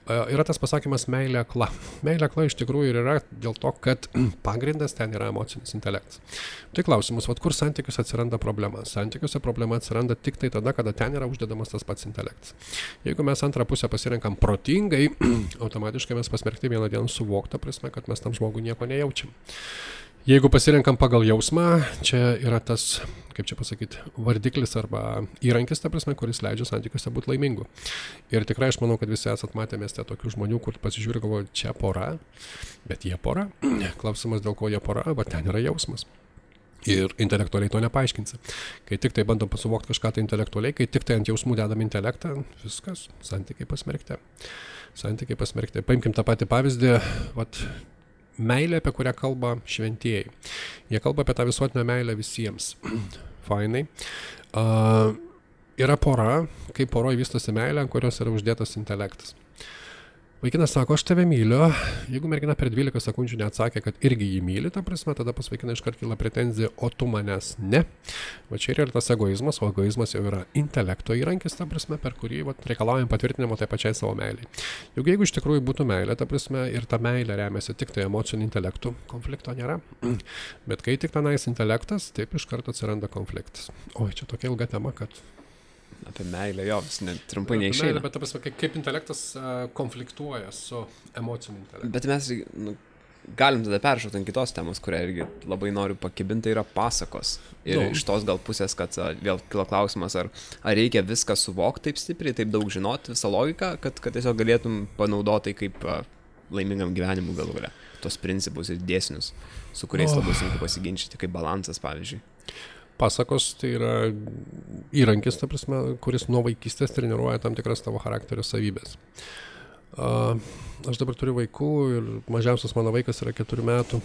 [SPEAKER 3] Yra tas pasakymas meilė akla. Meilė akla iš tikrųjų ir yra dėl to, kad pagrindas ten yra emocinis intelektas. Tai klausimus, vat kur santykiuose atsiranda problema? Santykiuose problema atsiranda tik tai tada, kada ten yra uždedamas tas pats intelektas. Jeigu mes antrą pusę pasirenkam protingai, automatiškai mes pasmerkti vieną dieną suvoktą prasme, kad mes tam žmogui nieko nejaučiam. Jeigu pasirenkam pagal jausmą, čia yra tas, kaip čia pasakyti, vardiklis arba įrankis, ta prasme, kuris leidžia santykiuose būti laimingu. Ir tikrai aš manau, kad visi esat matę mieste tokių žmonių, kur pasižiūri, galvoja, čia pora, bet jie pora. Klausimas, dėl ko jie pora, bet ten yra jausmas. Ir intelektualiai to nepaaiškinsi. Kai tik tai bandom pasuvokti kažką tai intelektualiai, kai tik tai ant jausmų dedam intelektą, viskas, santykiai pasmerkti. Paimkim tą patį pavyzdį, meilė, apie kurią kalba šventieji. Jie kalba apie tą visuotinę meilę visiems. Fainai. Yra pora, kai poroj vystosi meilė, ant kurios yra uždėtas intelektas. Vaikinas sako, aš tave myliu. Jeigu mergina per 12 sekundžių neatsakė, kad irgi jį myli, ta prasme, tada pas vaikiną iškart kyla pretenzija, o tu manęs ne. Va čia yra tas egoizmas, o egoizmas jau yra intelekto įrankis, ta prasme, per kurį reikalaujam patvirtinimo tai pačiai savo meiliai. Juk jeigu iš tikrųjų būtų meilė, ta prasme, ir ta meilė remiasi tik tai emociniu intelektu, konflikto nėra. Bet kai tik tenais intelektas, taip iš karto atsiranda konfliktas. Oi, čia tokia ilga tema, kad
[SPEAKER 2] apie meilę, jo, vis trumpai neišeina.
[SPEAKER 3] Bet ta prasme, kaip intelektas konfliktuoja su emociniu intelektu.
[SPEAKER 2] Bet mes galim tada peršokti ant kitos temos, kurią irgi labai noriu pakibinti, tai yra pasakos. Ir iš tos gal pusės, kad vėl kilo klausimas, ar reikia viską suvokti taip stipriai, taip daug žinoti, visą logiką, kad tiesiog galėtum panaudoti kaip laimingam gyvenimui galų gale. Tos principus ir dėsnius, su kuriais labai sunku pasiginčyti, kaip balansas, pavyzdžiui.
[SPEAKER 3] Pasakos tai yra įrankis, ta prasme, kuris nuo vaikystės treniruoja tam tikras tavo charakterio savybės. Aš dabar turiu vaikų ir mažiausias mano vaikas yra 4 metų.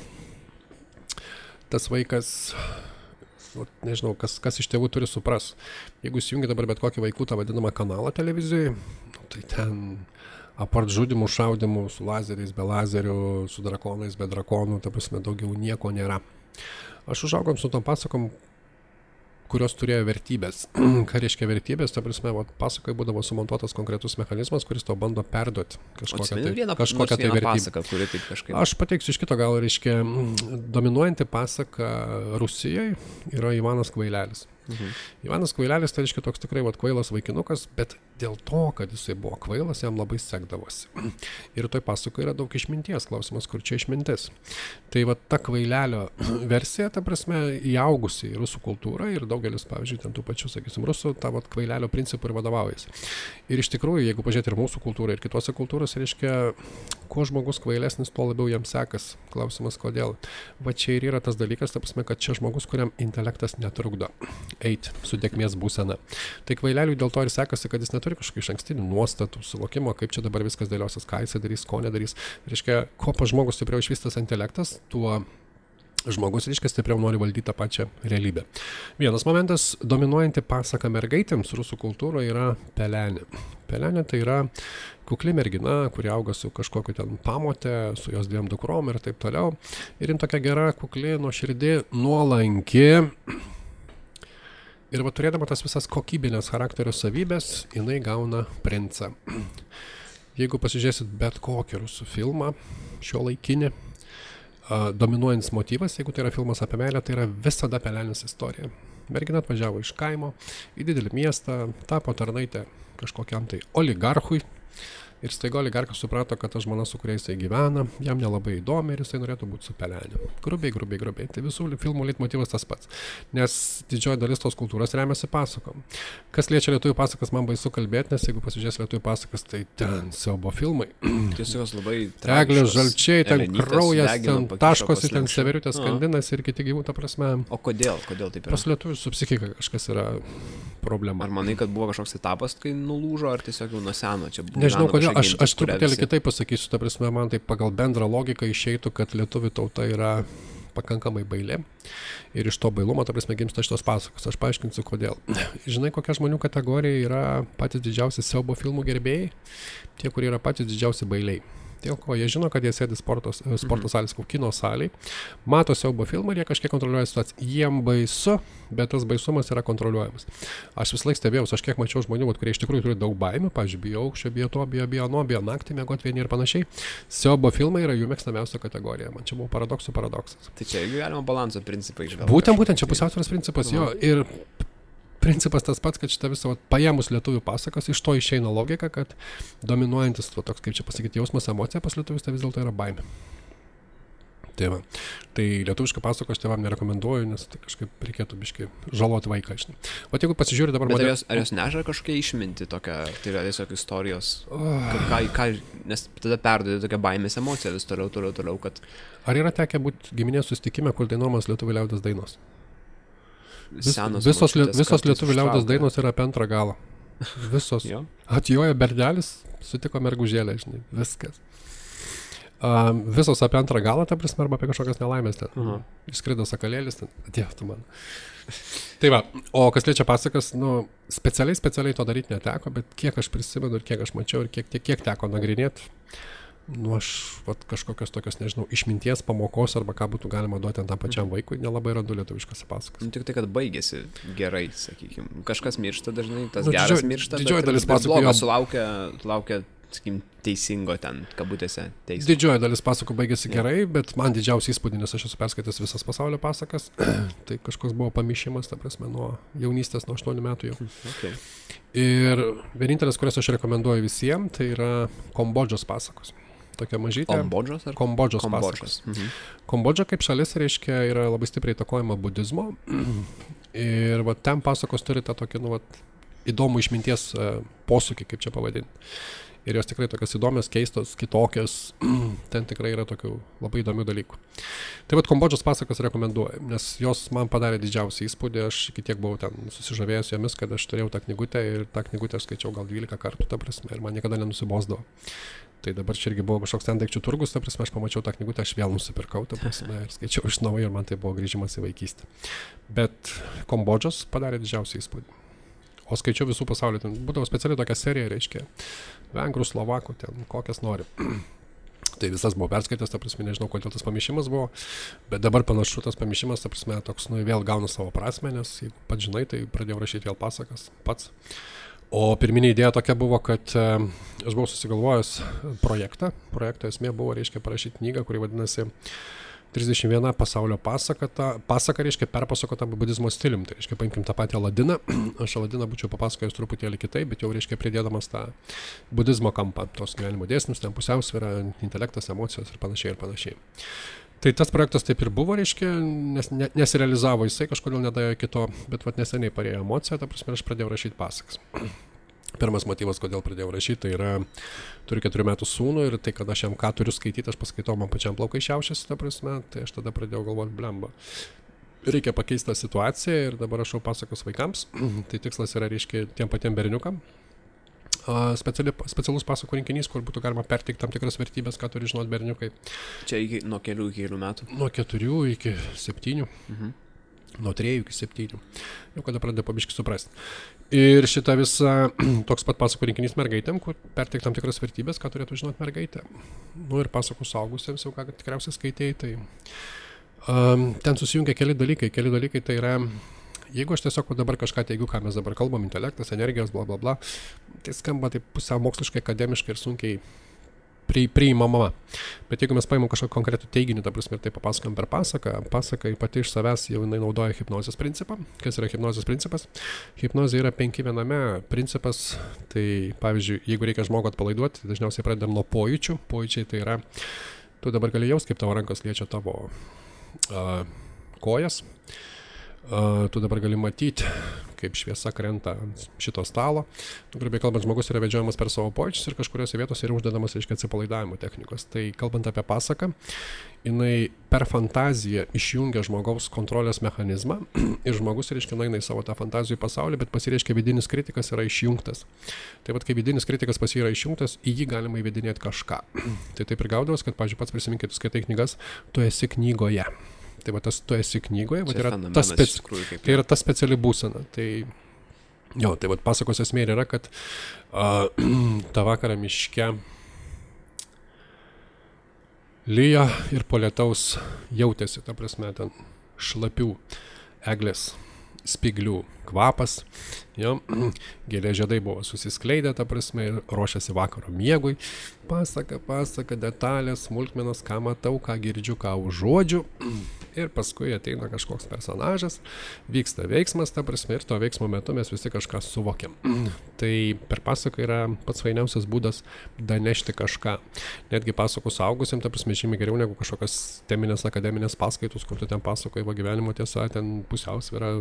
[SPEAKER 3] Tas vaikas, nežinau, kas iš tėvų turi supras. Jeigu įsijungi dabar bet kokį vaikų tą vadinamą kanalą televizijoje, tai ten apart žudimų, šaudimų su lazeriais, be lazerių, su drakonais, be drakonų, ta prasme, daugiau nieko nėra. Aš užaugom su tom pasakom, kurios turėjo vertybės. Ką reiškia vertybės? Ta prasme, pasakai būdavo sumontuotas konkretus mechanizmas, kuris to bando perduoti kažkokią tai vertybę. Aš pateiksiu iš kito, gal reiškia, dominuojanti pasaka Rusijoje yra Ivanas Kvailelis. Ivanas Kvailelis, tai reiškia toks tikrai kvailas vaikinukas, bet dėl to, kad jisai buvo kvailas, jam labai sekdavosi. Ir toj pasakoje yra daug išminties, klausimas, kur čia išmintis. Tai ta kvailelio versija, ta prasme, įaugusi į rusų kultūrą ir daugelis, pavyzdžiui, ten tų pačių, sakysim, rusų, tą kvailelio principų ir vadovaujasi. Ir iš tikrųjų, jeigu pažiūrėti ir mūsų kultūrą, ir kitose kultūrose, reiškia, kuo žmogus kvailesnis, tuo labiau jam sekas. Klausimas, kodėl. Va čia ir yra tas dalykas, ta prasme, kad čia žmogus, kuriam intelektas netrukdo eiti su tėkmės būsena. Tai kvaileliui dėl to ir sekasi, kad jis neturi kažkokių išankstinių nuostatų, suvokimo, kaip čia dabar viskas dėliosis, ką jis darys, ko nedarys. Reiškia, kuo pas žmogus stipriau išvystas intelektas, tuo žmogus, reiškia, stipriau nori valdyti tą pačią realybę. Vienas momentas, dominuojanti pasaka mergaitėms rusų kultūroje yra pelenė. Pelenė tai yra kukli mergina, kuri auga su kažkokiu ten pamotė, su jos 2 dukrom ir taip toliau. Ir jin tokia gera, kukli, nuoširdi, nuolanki. Ir va, turėdama tas visas kokybinės charakterio savybės, jinai gauna princą. Jeigu pasižiūrėsit bet kokį rusų filmą, šio laikinį, dominuojantis motyvas, jeigu tai yra filmas apie meilę, tai yra visada pelenės istorija. Mergina atvažiavo iš kaimo į didelį miestą, tapo tarnaitė kažkokiam tai oligarchui. Ir staiga oligarkas suprato, kad ta žmona, su kuria jisai gyvena, jam nelabai įdomi ir jisai norėtų būti su pelenė. Grubiai. Tai visų filmų leitmotyvas tas pats. Nes didžioji dalis tos kultūros remiasi pasakom. Kas liečia lietuvių pasakas, man baisu kalbėti, nes jeigu pasižiūrės lietuvių pasakas, tai ten siaubo filmai.
[SPEAKER 2] Tiesiog labai
[SPEAKER 3] Eglės žalčiai, ten kraujas, ten taškosi, ten severiutės skandinas ir kiti gyvūnų, ta prasme.
[SPEAKER 2] O kodėl taip yra?
[SPEAKER 3] Pas lietuvių su psichika kažkas yra problema.
[SPEAKER 2] Ar manai, kad buvo kažkoks etapas, kai nulūžo, ar tiesiog jau nuo seno čia buvo?
[SPEAKER 3] Nežinau, kodėl. Aš truputėlį kitaip pasakysiu, ta prasme, man tai pagal bendrą logiką išeitų, kad lietuvių tauta yra pakankamai bailė ir iš to bailumo, ta prasme, gimsta šitos pasakos. Aš paaiškinsiu, kodėl. Žinai, kokia žmonių kategorija yra patys didžiausi siaubo filmų gerbėjai? Tie, kurie yra patys didžiausi bailiai. Dėl ko jie žino, kad jie sėdi sporto salės, kino salėje, mato siaubo filmą ir jie kažkiek kontroliuoja situaciją. Jiem baisu, bet tas baisumas yra kontroliuojamas. Aš vis laik stebėjausi, aš kiek mačiau žmonių, kurie iš tikrųjų turi daug baimių, pavyzdžiui, bijo aukščio, bijo to, bijo naktį miegoti vieni ir panašiai. Siaubo filmai yra jų mėgstamiausia kategorija. Man čia buvo paradoksas.
[SPEAKER 2] Tai čia galima balanso principai išvelgti.
[SPEAKER 3] Būtent čia pusiausvyros principas, jo. Ir principas tas pats, kad šitą visą paėmus lietuvių pasakas, iš to išeina logika, kad dominuojantis toks, kaip čia pasakyti, jausmas, emocija pas lietuvius, tai vis dėlto yra baimė. Tai va. Tai lietuvišką pasaką aš tėvam nerekomenduoju, nes tai kažkaip reikėtų biškai žaloti vaiką. O jeigu pasižiūrė dabar...
[SPEAKER 2] Bet ar jos neža kažkokia išminti tokia, tai yra tiesiog istorijos, nes tada perduodi tokią baimės emociją vis toliau, kad...
[SPEAKER 3] Ar yra tekę būti giminės susitikime, kur dainuojamas lietuvių liaudies dainos? Visos lietuvių liaudies dainos yra apie antrą galą. Visos. Atjojo berdelis, sutiko mergužėlę, žinai, viskas. Visos apie antrą galą, ta prasme, arba apie kažkokias nelaimės ten. Išskrido sakalėlis ten, atėjo tu man. Tai va, o kas liečia pasakas, specialiai to daryti neteko, bet kiek aš prisimenu ir kiek aš mačiau ir kiek teko nagrinėti, aš kažkokios tokios, nežinau, išminties pamokos arba ką būtų galima duoti tam pačiam vaikui, nelabai randu lietuviškose pasakas.
[SPEAKER 2] Tik tai, kad baigėsi gerai, sakykime. Kažkas miršta dažnai, tas geras miršta,
[SPEAKER 3] didžioji dalis
[SPEAKER 2] pasakų sulaukia, sakykim, teisingo ten, kabutėse, teismo.
[SPEAKER 3] Didžioji dalis pasakų baigėsi gerai, bet man didžiausiai įspūdį, nes aš esu perskaitęs visas pasaulio pasakas, tai kažkoks buvo pamišimas, ta prasme, nuo jaunystės, nuo 8 metų jau.
[SPEAKER 2] Okay.
[SPEAKER 3] Ir vienintelis, kurias aš rekomenduoju visiems, tai yra Kambodžos pasakos. Tokia mažytė. Kambodžos pasakos. Kambodža kaip šalis, reiškia, yra labai stipriai įtakojama budizmo. Ir va, ten pasakos turi tą tokį, įdomų išminties posūkį, kaip čia pavadinti. Ir jos tikrai tokios įdomios, keistos, kitokios. Ten tikrai yra tokių labai įdomių dalykų. Tai va, Kambodžos pasakas rekomenduoju, nes jos man padarė didžiausią įspūdį. Aš iki tiek buvau ten susižavėjęs jomis, kad aš turėjau tą knygutę ir tą knygutę aš skaičiau gal 12 kartų, ta prasme, ir man niekada nenusibosdavo. Tai dabar čia irgi buvo kažkoks ten daikčių turgus, ta prasme, aš pamačiau tą knygutę, aš vėl nusipirkau, ta prasme, ir skaičiau iš naujo ir man tai buvo grįžimas į vaikystę. Bet Kambodžos padarė didžiausią įspūdį. O skaičiau visų pasaulio, ten būdavo specialiai tokia serija, reiškia, vengrų, slovakų, ten kokias nori. Tai visas buvo perskaitęs, ta prasme, nežinau, kodėl tas pamišimas buvo, bet dabar panašu tas pamišimas, ta prasme, toks, vėl gauna savo prasmę, nes jeigu pats žinai, tai pradėjau rašyti vėl pasakas pats. O pirminė idėja tokia buvo, kad aš buvau susigalvojęs projektą. Projekto esmė buvo, reiškia, parašyti knygą, kuri vadinasi 31 pasaulio pasaka, reiškia, perpasakota budizmo stilium. Tai reiškia, paimkim tą patį Aladiną. Aš Aladiną būčiau papasakojęs truputėlį kitaip, bet jau, reiškia, pridėdamas tą budizmo kampą, tos gyvenimo dėsnius, ten pusiausvyrą, intelektas, emocijos ir panašiai. Tai tas projektas taip ir buvo, reiškia, nesirealizavo jisai, kažkodėl nedėjo kito, bet neseniai parėjo emocija, ta prasme, aš pradėjau rašyti pasakas. Pirmas motyvas, kodėl pradėjau rašyti, tai yra, turiu 4 metų sūnų ir tai, kad aš jam ką turiu skaityti, aš paskaitau, man pačiam plaukai šiaušiasi, ta prasme, tai aš tada pradėjau galvoti, blemba. Reikia pakeisti tą situaciją ir dabar rašau pasakas vaikams. Tai tikslas yra, reiškia, tiem patiem berniukam. specialus pasakų rinkinys, kur būtų galima perteikti tam tikras vertybės, ką turi žinoti berniukai.
[SPEAKER 2] Čia nuo kelių iki kelių metų?
[SPEAKER 3] Nuo 4 iki 7. Nuo 3 iki 7. Jau kada pradeda pabiškai suprasti. Ir šita visa toks pat pasakų rinkinys mergaitėm, kur perteikti tam tikras vertybės, ką turėtų žinoti mergaitė. Nu ir pasakų suaugusiems, jau ką tikriausiai skaitėjai, tai ten susijungia keli dalykai. Keli dalykai tai yra, jeigu aš tiesiog dabar kažką teigiu, ką mes dabar kalbam, intelektas, energijos, bla bla bla, tai skamba taip pusiau moksliškai, akademiškai ir sunkiai priimama. Bet jeigu mes paimam kažkokį konkretų teiginį, ta prasme, ir tai papasakam per pasaką, pasaka pati iš savęs jau jinai naudoja hipnozės principą. Kas yra hipnozės principas? Hipnozė yra 5 viename principas. Tai pavyzdžiui, jeigu reikia žmogų atpalaiduoti, dažniausiai pradedam nuo pojūčių. Pojūčiai tai yra, tu dabar gali jaust, kaip tavo rankos liečia tavo kojas. Tu dabar gali matyti, kaip šviesa krenta ant šito stalo. Grubiai kalbant, žmogus yra vedžiojamas per savo pojūčius ir kažkuriuose vietose yra uždedamas, reiškia, atsipalaidavimo technikos. Tai kalbant apie pasaką, jinai per fantaziją išjungia žmogaus kontrolės mechanizmą ir žmogus, reiškia, eina į savo tą fantazijų pasaulį, bet pasireiškia vidinis kritikas yra išjungtas. Tai vat, kai vidinis kritikas pas jį yra išjungtas, į jį galima įvedinėti kažką. Tai taip ir gaudavas, kad, pavyzdžiui, pats prisiminkit, tu skaitai knygas, tu esi knygoje. Tai va, tu esi knygoje, va, tai yra ta speciali būsena. Tai, jo, tai va, pasakos esmė yra, kad tą vakarą miške lyja ir po lietaus jautėsi, ta prasme, ten šlapių eglės spiglių kvapas, jo, gėlės žiedai buvo susiskleidę, ta prasme, ir ruošiasi vakaro miegui. Pasaka, detalės, smulkmenos, ką matau, ką girdžiu, ką užuodžiu. Ir paskui ateina kažkoks personažas, vyksta veiksmas, ta prasme, ir to veiksmo metu mes visi kažką suvokiam. Tai per pasaką yra pats fainiausias būdas danešti kažką. Netgi pasakų suaugusiam, ta prasme, žymiai geriau negu kažkokios teminės akademinės paskaitos, kur tu ten pasakoji va gyvenimo tiesa, ten pusiausvyra,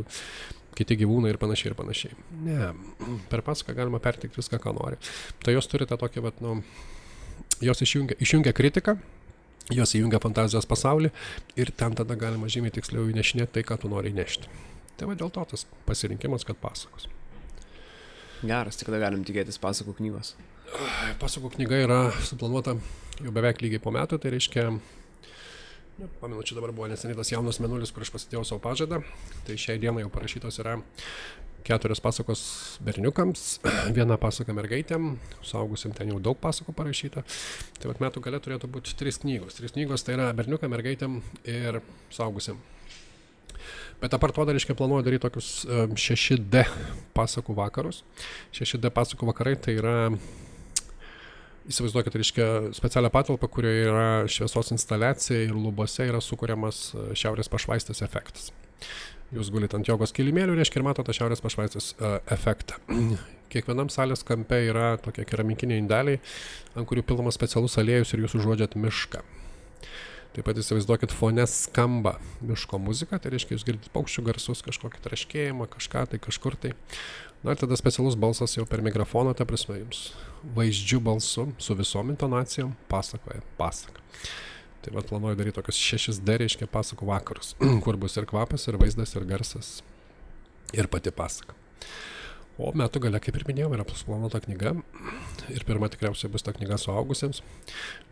[SPEAKER 3] kiti gyvūnai ir panašiai. Ne, per pasaką galima perteikti viską, ką nori. Tai jos turi tą tokį, vat, nu, jos išjungia kritiką, jos įjungia fantazijos pasaulį ir ten tada galima žymiai tiksliau įnešinėti tai, ką tu nori įnešti. Tai va dėl to tas pasirinkimas, kad pasakos.
[SPEAKER 2] Geras, tik kada galim tikėtis pasakų knygos?
[SPEAKER 3] Pasakų knyga yra suplanuota jau beveik lygiai po metų, tai reiškia, pamenu, čia dabar buvo neseniai tas jaunas mėnulis, kur aš pasidėjau savo pažadą, tai šiai dienai jau parašytos yra 4 pasakos berniukams, 1 pasaka mergaitėm, suaugusim ten jau daug pasakų parašyta. Tai vat metų gale turėtų būti 3 knygos. 3 knygos tai yra berniukam, mergaitėm ir suaugusim. Bet apart to dar, reiškia, planuoju daryti tokius 6D pasakų vakarus. 6D pasakų vakarai tai yra, įsivaizduokit, reiškia, specialią patalpą, kurioje yra šviesos instaliacija ir lubose yra sukuriamas šiaurės pašvaistės efektas. Jūs gulit ant jogos kilimėlių, reiškia, ir matote šiaurės pašvaistės efektą. Kiekvienam salės kampe yra tokie keramikiniai indeliai, ant kurių pilamas specialus aliejus ir jūs užuodžiat mišką. Taip pat įsivaizduokit, fone skamba miško muzika, tai reiškia, jūs girdite paukščių garsus, kažkokį traškėjimą, kažką tai kažkur tai. Na ir tada specialus balsas jau per mikrofoną, ta prasme, jums vaizdžių balsu su visom intonacijom pasakoja pasaką. Tai vat planuoju daryti tokius 6D, reiškia, pasakų vakarus, kur bus ir kvapas, ir vaizdas, ir garsas, ir pati pasaka. O metų gale, kaip ir minėjau, yra suplanuota knyga. Ir pirma tikriausiai bus ta knyga suaugusiems.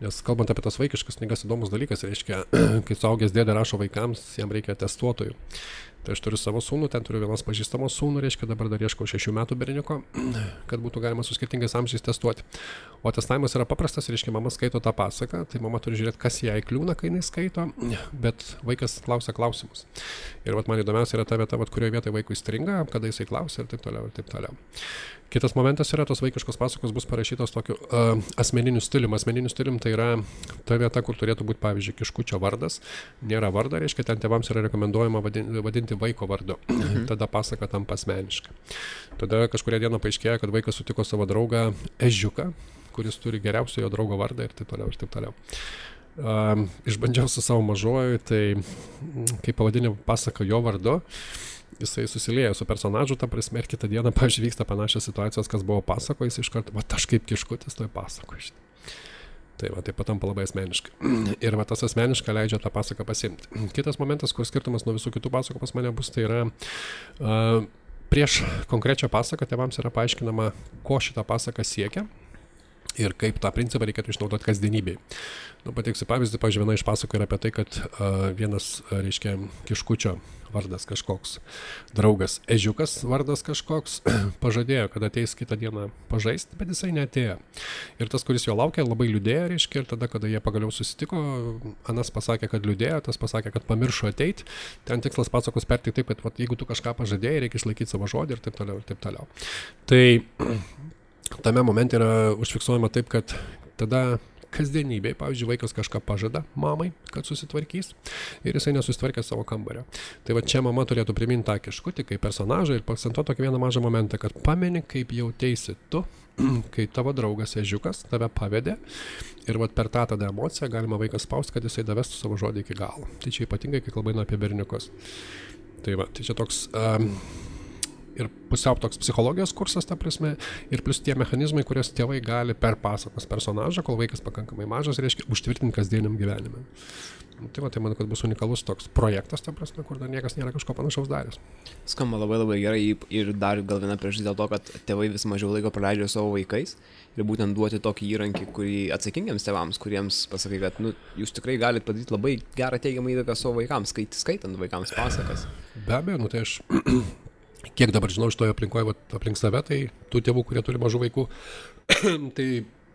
[SPEAKER 3] Nes kalbant apie tas vaikiškas knygas, įdomus dalykas, reiškia, kai suaugęs dėdė rašo vaikams, jam reikia testuotojų. Tai aš turiu savo sūnų, ten turiu vienos pažįstamos sūnų, reiškia, dabar dar ieškau 6 metų berniuko, kad būtų galima su skirtingais amžiais testuoti. O testavimas yra paprastas, reiškia, mama skaito tą pasaką, tai mama turi žiūrėti, kas jai kliūna, kai jinai skaito, bet vaikas klausia klausimus. Ir vat man įdomiausia yra ta vieta, vat kurioje vietoje vaikui stringa, kada jisai klausia ir taip toliau, ir taip toliau. Kitas momentas yra, tos vaikiškos pasakos bus parašytos tokiu asmeniniu stilium. Asmeniniu stilium tai yra ta vieta, kur turėtų būti, pavyzdžiui, kiškučio vardas. Nėra vardo, reiškia, ten tėvams yra rekomenduojama vadinti vaiko vardu. Tada pasaka tampa asmeniška. Tada kažkuria diena paaiškėjo, kad vaikas sutiko savo draugą Ežiuką, kuris turi geriausio jo draugo vardą ir taip toliau, ir taip toliau. Išbandžiau su savo mažuoju, tai kai pavadinė pasaka jo vardu, jisai susilieja su personažu, ta prasme, ir kitą dieną, pavyzdžiui, vyksta panašios situacijos, kas buvo pasako, jis iš karto, va, aš kaip kiškutis toj pasako. Tai va, tai patampa labai asmeniškai. Ir va, tas asmeniška leidžia tą pasaką pasimti. Kitas momentas, kur skirtumas nuo visų kitų pasakų pas mane bus, tai yra prieš konkrečią pasaką tėvams yra paaiškinama, ko šitą pasaką siekia ir kaip tą principą reikėtų išnaudoti kasdienybėj. Pateiksiu pavyzdį, pavyzdžiui, viena iš pasakų yra apie tai, kad vienas, reiškia, kiškučio vardas kažkoks, draugas ežiukas vardas kažkoks, pažadėjo, kad ateis kitą dieną pažaisti, bet jisai neatėjo. Ir tas, kuris jo laukia, labai liūdėjo, reiškia, ir tada, kada jie pagaliau susitiko, anas pasakė, kad liūdėjo, tas pasakė, kad pamiršo ateiti. Ten tikslas pasakos perteikti taip, kad jeigu tu kažką pažadėjai, reikia išlaikyti savo žodį ir taip toliau, ir taip toliau. Tai tame momente yra užfiksuojama taip, kad tada kasdienybėj, pavyzdžiui, vaikas kažką pažada mamai, kad susitvarkys ir jisai nesusitvarkė savo kambario. Tai va čia mama turėtų priminti tą kiškutį kaip personažą ir paakcentuoti tokį vieną mažą momentą, kad pameni, kaip jauteisi tu, kai tavo draugas ežiukas tave pavedė ir va per tą tada emociją galima vaikas spausti, kad jisai davestų savo žodį iki galo. Tai čia ypatingai, kai kalba eina apie berniukus. Tai va, tai čia toks... ir pusiau toks psichologijos kursas, ta prasme, ir plus tie mechanizmai, kurias tėvai gali per pasakos personažą, kol vaikas pakankamai mažas, reiškia, užtvirtinti kasdieniam gyvenime. Tai va, tai manau, kad bus unikalus toks projektas, ta prasme, kur dar niekas nėra kažko panašaus daręs.
[SPEAKER 2] Skamba labai labai gerai ir dar gal viena priežastis dėl to, kad tėvai vis mažiau laiko praleidžia savo vaikais ir būtent duoti tokį įrankį, kurį atsakingiams tėvams, kuriems pasakai, kad jūs tikrai galite padaryti labai gerą teigiamą įtaką savo vaikams, skaitant vaikams pasakas.
[SPEAKER 3] Be abejo, tai aš kiek dabar žinau iš toje aplinkoje, aplink save, tai tų tėvų, kurie turi mažų vaikų, tai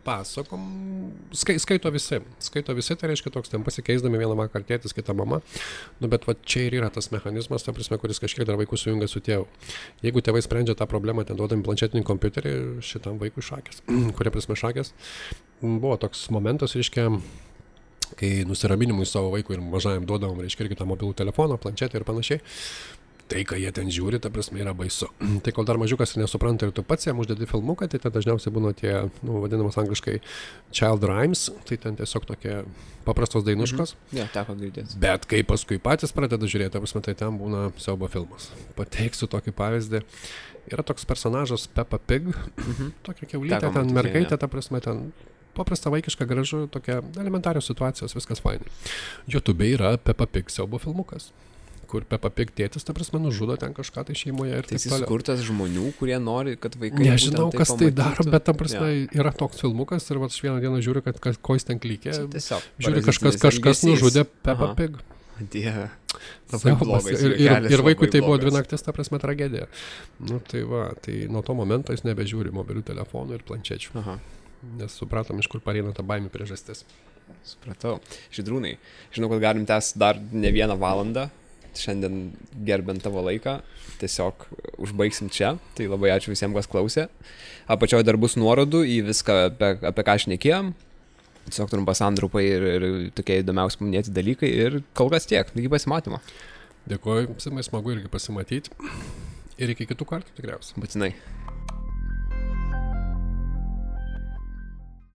[SPEAKER 3] pasakom, skaito visi, tai reiškia toks, ten pasikeisdami vieną vakarą tėtis, kitą mama, bet va čia ir yra tas mechanizmas, ta prasme, kuris kažkiek dar vaikų sujungia su tėvu. Jeigu tėvai sprendžia tą problemą, ten duodami planšetinį kompiuterį šitam vaikui šakės, kurie prasme šakės, buvo toks momentas, reiškia, kai nusiraminimui savo vaikui ir mažajam duodavom, reiškia, irgi tą mobilų telefoną, planšetę ir panašiai. Tai, ką jie ten žiūri, ta prasme, yra baisu. Tai kol dar mažiukas ir nesupranta ir tu pats jam uždedi filmuką, tai ten dažniausiai būna tie, vadinamas angliškai child rhymes, tai ten tiesiog tokie paprastos dainuškos.
[SPEAKER 2] Teko girdėti.
[SPEAKER 3] Bet kai paskui patys pradeda žiūrėti, ta prasme, tai ten būna siaubo filmas. Pateiksiu tokį pavyzdį. Yra toks personažas Peppa Pig, tokia kiaulytė, ten mergaitė, ta prasme, ten paprasta vaikiška, gražu, tokia elementarios situacijos, viskas fainai. YouTube yra Peppa Pig siaubo filmukas, kur Peppa Pig tėtis, ta prasme, nužudo ten kažką tai šeimoje ir taip toliau. Tai jis
[SPEAKER 2] skurtas žmonių, kurie nori, kad vaikai...
[SPEAKER 3] Nežinau, kas tai daro, bet ta prasme yra toks filmukas ir aš vieną dieną žiūriu, kad ko jis ten klykė. Žiūriu, kažkas nužudė Peppa Pig.
[SPEAKER 2] Dieve.
[SPEAKER 3] Ir vaikui tai buvo 2 naktis, ta prasme, tragedija. Tai va, tai nuo to momento jis nebežiūri mobilių telefonų ir planšečių. Nes supratom, iš kur pareina ta baimė priežastis.
[SPEAKER 2] Supratau. Žydrūnai, žinau, kad galim tęsti dar ne 1 valandą. Šiandien gerbent tavo laiką, tiesiog užbaigsim čia, tai labai ačiū visiems, kas klausė. Apačioje dar bus nuorodų į viską, apie ką šnekėjom, tiesiog turim pasantraupai ir tokie įdomiausi paminėti dalykai ir kol kas tiek, iki pasimatymo.
[SPEAKER 3] Dėkuoju, smagu irgi pasimatyti ir iki kitų kartų tikriausiai.
[SPEAKER 2] Būtinai.